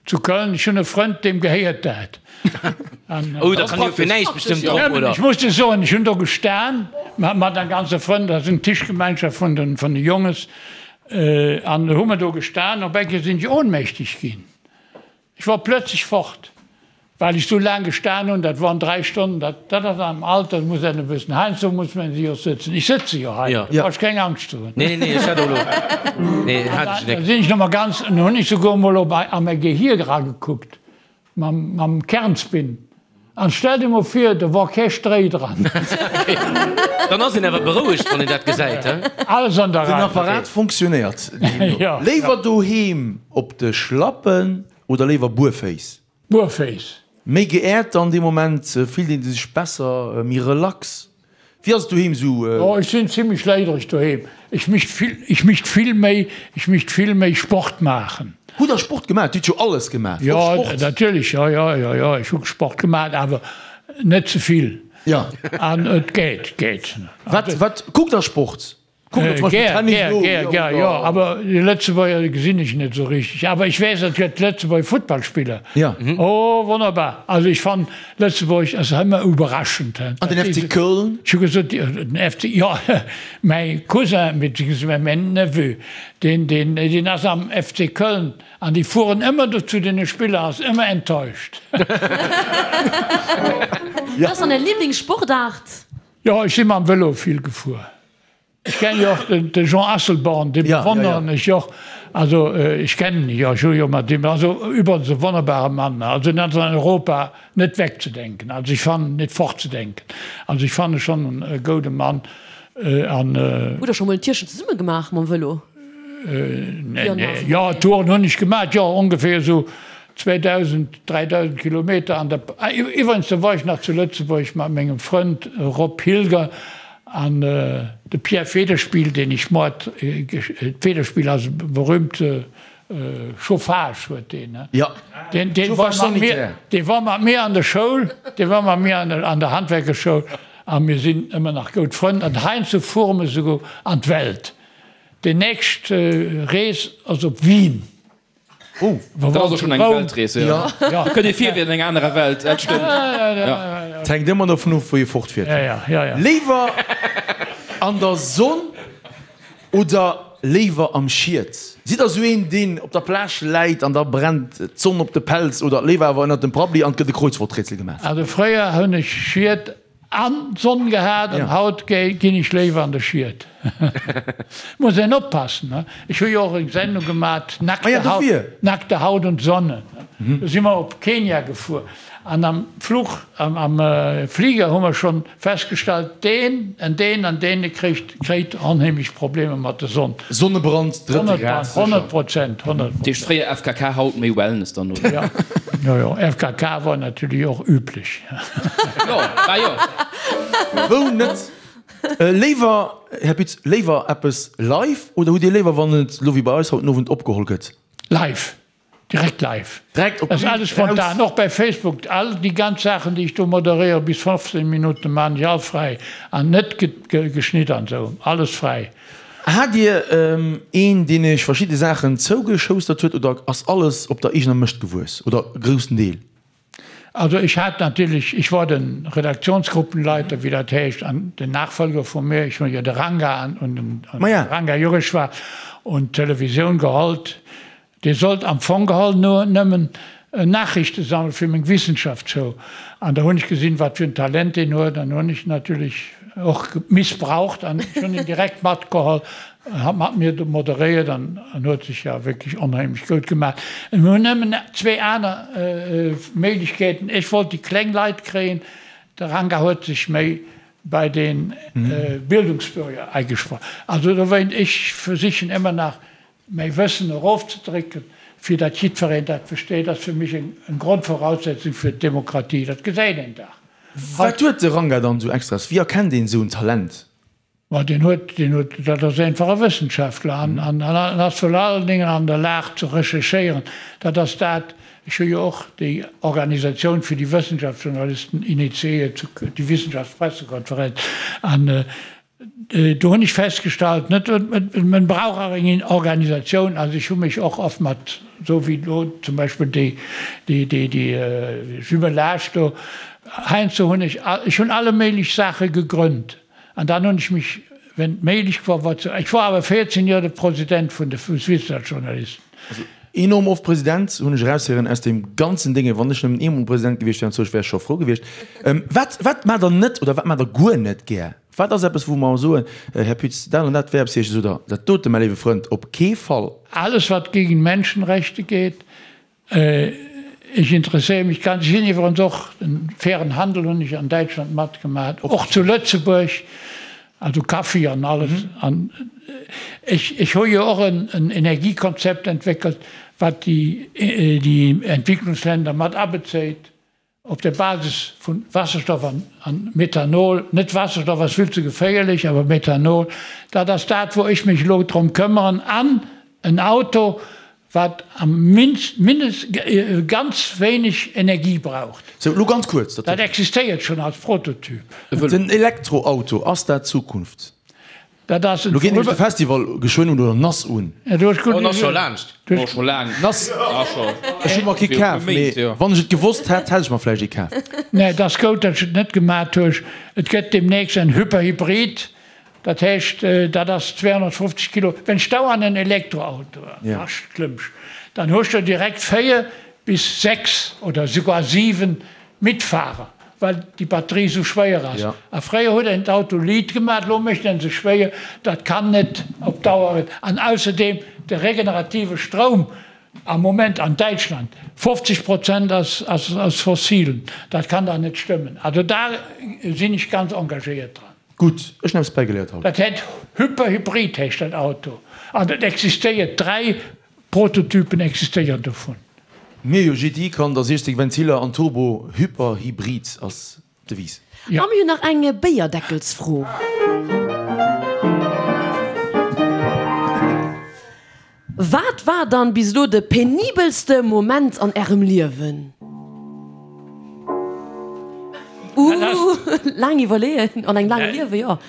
zu Köln. Ech hunn e Frënd, deem gehéiert dat. Oh, da kann jo fir näischt bestëmmt drop, oder? Ech muss dir soen, ech hunn do gestan mat eng ganze Frënn, dat ass eng Tischgemeinschaft vun de vun de Jonges, an hu mer do gestan. Op eng Kéier sinn ech ohnmächtig ginn. Ech wor plötzlech fort, well ech sou laang gestan hunn, dat woren 3 Stonnen, dat dat ass am Alter, muss een e bëssen, heiansdo muss men jo sëtzen, ech sëtze jo hei, do brauch ech keng Angscht ze hunn. Nee, nee, ech hat och elo, nee, hat ech Da nek. sinn ech nochmol ganz, an hunn ech souguer emol op a mäi Gehir eragekuckt, mam mam Kernspin, an stell dir mol vir, do wor kee Stréi dran. Dann ass een awer berouegt, wann een dat gesäit, he? Alles an der Den Rei. Apparat fonctionnéiert deemno. Léiwer doheem op de Schlappen oder léiwer buerféiss? Buerféiss. Méi geehrt dann dee Moment, fillt een sech besser, méi relax? Wéi ass et doheem sou? Oh, ech sinn zimlech léidereg doheem. Ech mischt vill, ech mischt vill méi, ech mischt vill méi Sport maachen. Hutt der Sport gemaach? Dir hutt jo alles gemaach, och Jo, Sport? natierlech, jo, jo, jo, jo, ech hu Sport gemaach, awer net ze vill. Jo. An et geet, geet. Wat, wat, kuckt der Sport? Kuckt der zum Beispill Gär, Tennis gär, elo? gär, gär, jo, awer déi Lëtzebuerger gesinn ech net esou richteg. Awer ech weess, et gëtt Lëtzebuerger Futtballspiller. Ja. Oh, wonnerbar. Also ech fannen, Lëtzebuerg ass ëmmer iwwerraschend. An den FC Köln? Ech hu gesot, den FC, jo, mäi Cousin, beziehungsweise mäin Neveu, deen, deen, deen ass am FC Köln an déi fueren ëmmer do zu deene Spiller, ass ëmmer enttäuscht. Wat ass dann Är Liblingssportaart? Jo, ech si mam Vëlo vill gefuer. Ech kennen jo och de Jean Asselborn, dee bewonneren ech och. Also ech kennen e jo, ech hu jo mat him, also übrigens e wonnerbare Mann, also en ass an Europa net wegzedenken, also ech fannen, net fortzedenken. Also ech fanne schonn e goude Mann an. Hutt der scho mol en Tierchen zesumme gemaach mam Vëlo? Nee, nee, jo, Touren hunn ech gemaach, jo, ongeféier esou 2.000, 3.000 Kilometer an der, iwwregens do war ech nach zu Lëtzebuerg mat mengem Frënd Rob Hilger an de Pierre Federspiel, deen ech moart, Federspiel ass e berühmte Chauffage huet deen, ne? Jo, Deen, deen war Chauffage mat mir, sanitaire. dee war mat mir an der Schoul, dee war mat mir an der, an der Handwerkerschoul a mir sinn ëmmer nach goud Frënn an heiansdo fuere mer souguer an d'Welt. Déi nächst Rees ass op Wien. Oh, dat ass och schonn eng Weltrees, jo. Jo. Kënnt ee vir wéi an enger anerer Welt, dat stëmmt. Jo. Et hänkt ëmmer dovun of, wou ee fortfiert. Léiwer an der Sonn oder léiwer am Schied? Sidd der sou een, deen op der Plage läit an da brennt d'Sonn op de Pelz oder léiwer awer ënnert dem Prabbeli an et gëtt e Kreuzworträtsel gemaach? Also fréier hunn ech Schied an Sonn gehat an haut ginn ech léiwer an de Schied. Muss een oppassen, ne? Ech hu jo och eng Sendung gemat, Nackte Haut, Nackte Haut und Sonne. Do si mer op Kenia gefuer an am Fluch, am Fliger hu mer schonn festgestallt, deen en deen an deen kréit kréit onheemlech Problemer mat der Sonn. Sonnebrand drëtte Grad sécher. 100 Prozent, 100 Prozent. Deeg fréier FKK, haut méi Wellness dann, oder? Jo, jo, jo, FKK war natierlech och üblech. Jo, war jo. Wou net? Léiwer, Här Pütz, léiwer eppes live oder hutt Dir léiwer, wann et elo wéi bei eis haut den Owend opgeholl gëtt? Live, direkt live. Direkt op d'Bün, raus. Alles spontan, och bei Facebook. All déi ganz Saachen, déi ech do moderéiere bis 15 Minutten, maachen ech all fräi an net geschnidden an esou, alles fräi. Hat Dir een, deen Iech verschidde Saachen zougeschoustert huet oder ass alles op der eegener Mëscht gewuess oder e groussen Deel? Also ech hat natierlech, ich war den Redaktionsgruppenleiter, wéi dat heescht, an den Nachfolger vu mir, ech hunn jo de Ranga an den Ranga Jureshwar un d'Televisioun gehollt, dee sollt am Fong geholl no nëmmen Nachrichte sammele fir meng Wissenschaftsshow. An da hunn ech gesinn, wat fir en Talent deen huet, an hunn ech natierlech och missbraucht an ech hunn en direkt matgeholl. En hat mat mir moderéiert an en huet sech jo wierklech onheemlech goud gemaach. Mir hunn nëmmen zwee aner Méiglechkeeten. Ech wollt déi kleng Leit kréien, de Ranga huet sech méi bei de Bildungsbürger agesprach. Also dowéint, ech versichen ëmmer nach mäi Wëssen erofzedrécken, fir datt jiddwereen dat versteet, ass fir mech eng Grondvoraussetzung fir d'Demokratie. Dat gesäit een dach. Wat huet de Ranga dann esou Extras? Wéi erkennt een esou en Talent? Ma deen huet, deen huet, dat ass einfach e Wëssenschaftler an, an, an ass virun allen Dingen an der Lag ze recherchéieren. Dat ass dat, ech hu jo och déi Organisatioun fir déi Wëssenschaftsjournalisten initiéiert, déi Wissenschaftspressekonferenz, an do hunn ech festgestallt, net, man brauch och eng Organisatioun. Also ech hu mech och oft mat, esou wéi elo zum Beispill déi, déi, déi, déi Jumelage do, heiansdo hunn ech, ech hunn alle méiglech Saache gegrënnt. An dann hunn ech mech, wenn et méiglech war, war zu, ech war awer 14 Joer de President vun de Wissenschaftsjournalisten. Also enorm oft President, hunn ech eraushéieren aus deem ganzen Dénge. Wann ech nëmmen eemol President gewiescht wär, wär ech scho frou gewiescht. Wat, wat maacht Der net oder wat maacht Der guer net gär? Wat ass eppes, wou mer soen, Här Pütz, dat an dat wär eppes fir Iech, oder dat dote, mäi léiwe Frënd, op kee Fall? Alles, wat gegen Menschenrechte geht, Ech interesséiere mech ganz, ech sinn iwwerens och, den fairen Handel hunn ech an Däitschland matgemaat, och zu Lëtzebuerg, also Kaffi an alles. An ech, ech hu jo och en Energiekonzept entwéckelt, wat déi, déi Entwicklungsländer mat abezéit. Op der Basis vu Wasserstoff an Methanol, net Wasserstoff ass vill ze geféierlech, awer Methanol, dat ass dat wou ech mech elo drëm këmmeren, an en Auto wat am mindest ganz wéineg Energie braucht. Sou, elo ganz kuerz. Dat existéiert schonn als Prototyp. Den Elektroauto, ass dat d'Zukunft? Dat ass Lo geet nämlech de Festival geschwënn un oder nass un. Oh, en ass scho laanscht. Oh, scho laang. Nass. Ech hu mer kee kaf, mee wann ech et gewosst hätt, hätt ech mer vläicht ee kaf. Nee, et ass goud, datt ech et net gemat huech. Et gëtt demnächst en Hyperhybrid, dat heescht, dat ass 250 Kilo. Wenn s du an en Elektroauto eraklëmmsch, dann hues du direkt 4 bis 6 oder souguer 7 Mitfahrer, well déi Batterie esou schwéier ass. A fréier huet een d'Auto liit gemaach, elo mécht een se schwéier. Dat kann net op Dauer. An ausserdeem de regenerative Stroum am Moment an Däitschland, 50 Prozent ass aus fossilen. Dat kann dach net stëmmen. Also da sinn ech ganz engagéiert dran. Gutt, ech hunn eppes bäigeléiert haut. Dat heet Hyperhybrid heescht dat Auto an et existéiert 3 Prototypen existéieren dovun. Mir jo, GTI kann der 60 Ventiller an Turbo, Hyper Hybrid ass d'Devise. A mir hunn nach eng Béierdeckelsfro. Wat war dann bis elo de penibelste Moment an ärem Liewen? Ooh, laang iwwerleeën an engem laange Liewen, jo.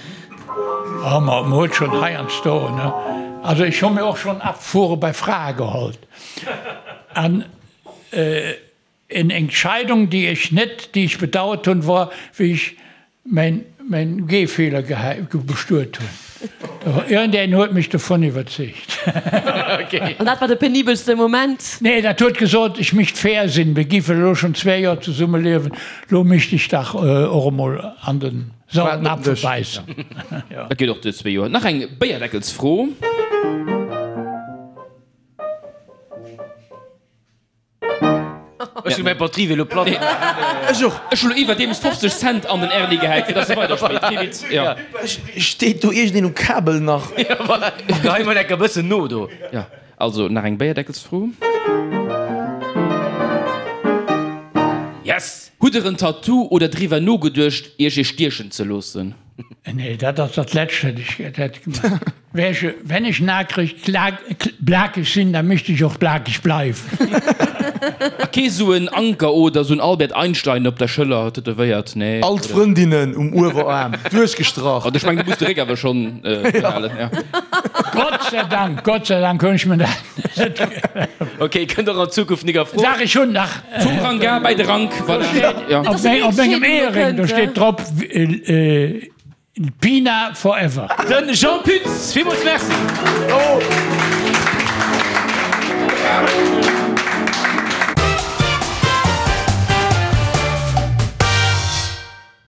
Oh, ma mer huet schonn heiansdo, ne? Also ech hu mir och schonn Abfuhre bei Frae gehollt. An en Entscheidung, déi ech net, déi ech bedauert hunn, wor, wéi ech mäin, mäin Gehfehler bestuet hunn. Iergendeen huet mech dovun iwwerzeegt. An dat war de penibelste Moment? Nee, dat huet gesot, ech misst fair sinn, mir géifen elo schonn zwee Joer zesumme liewen, elo misst ech dach och emol an den sauren Apfel bäissen. Dat geet och duer, zwee Joer. Nach eng Béierdeckelsfro. Ech hunn mäi Batterie elo platt. Ech och. Ech hunn elo iwwerdeems 50 Cent an den Erni gehäit, fir dass e weiderspillt. Kee Witz, jo. Steet do iergendeen um Kabel nach? Jo, voilà. Gehei mol enker bëssen no do. Jo, also nach eng Béierdeckelsfro. Yes! Hutt der en Tattoo oder driwwer nogeduecht, iech ee stiechen ze loossen? Nee, dat ass dat Lescht, wat ech hätt gemaach. Wenn ech nakreg blakeg sinn, da mischt ech och blakeg bleiwen. A kee sou en Anker oder sou en Albert Einstein op der Schëller tätowéiert, nee? All d'Frëndinnen um Uewerarm duerchgestrach. Ech mengen, du muss de Réck awer schonn behalen, ja. Gott sei Dank, Gott sei Dank hunn ech mir dat net. Ok, kënnt och an Zukunft nik a Fro. Dach, ech hunn nach. Vum Rang A bäi de Rank, voilà, ja. Op mengem Eheréng, do steet drop. Pina forever. Den Jean Pütz, villmools Merci. Bravo!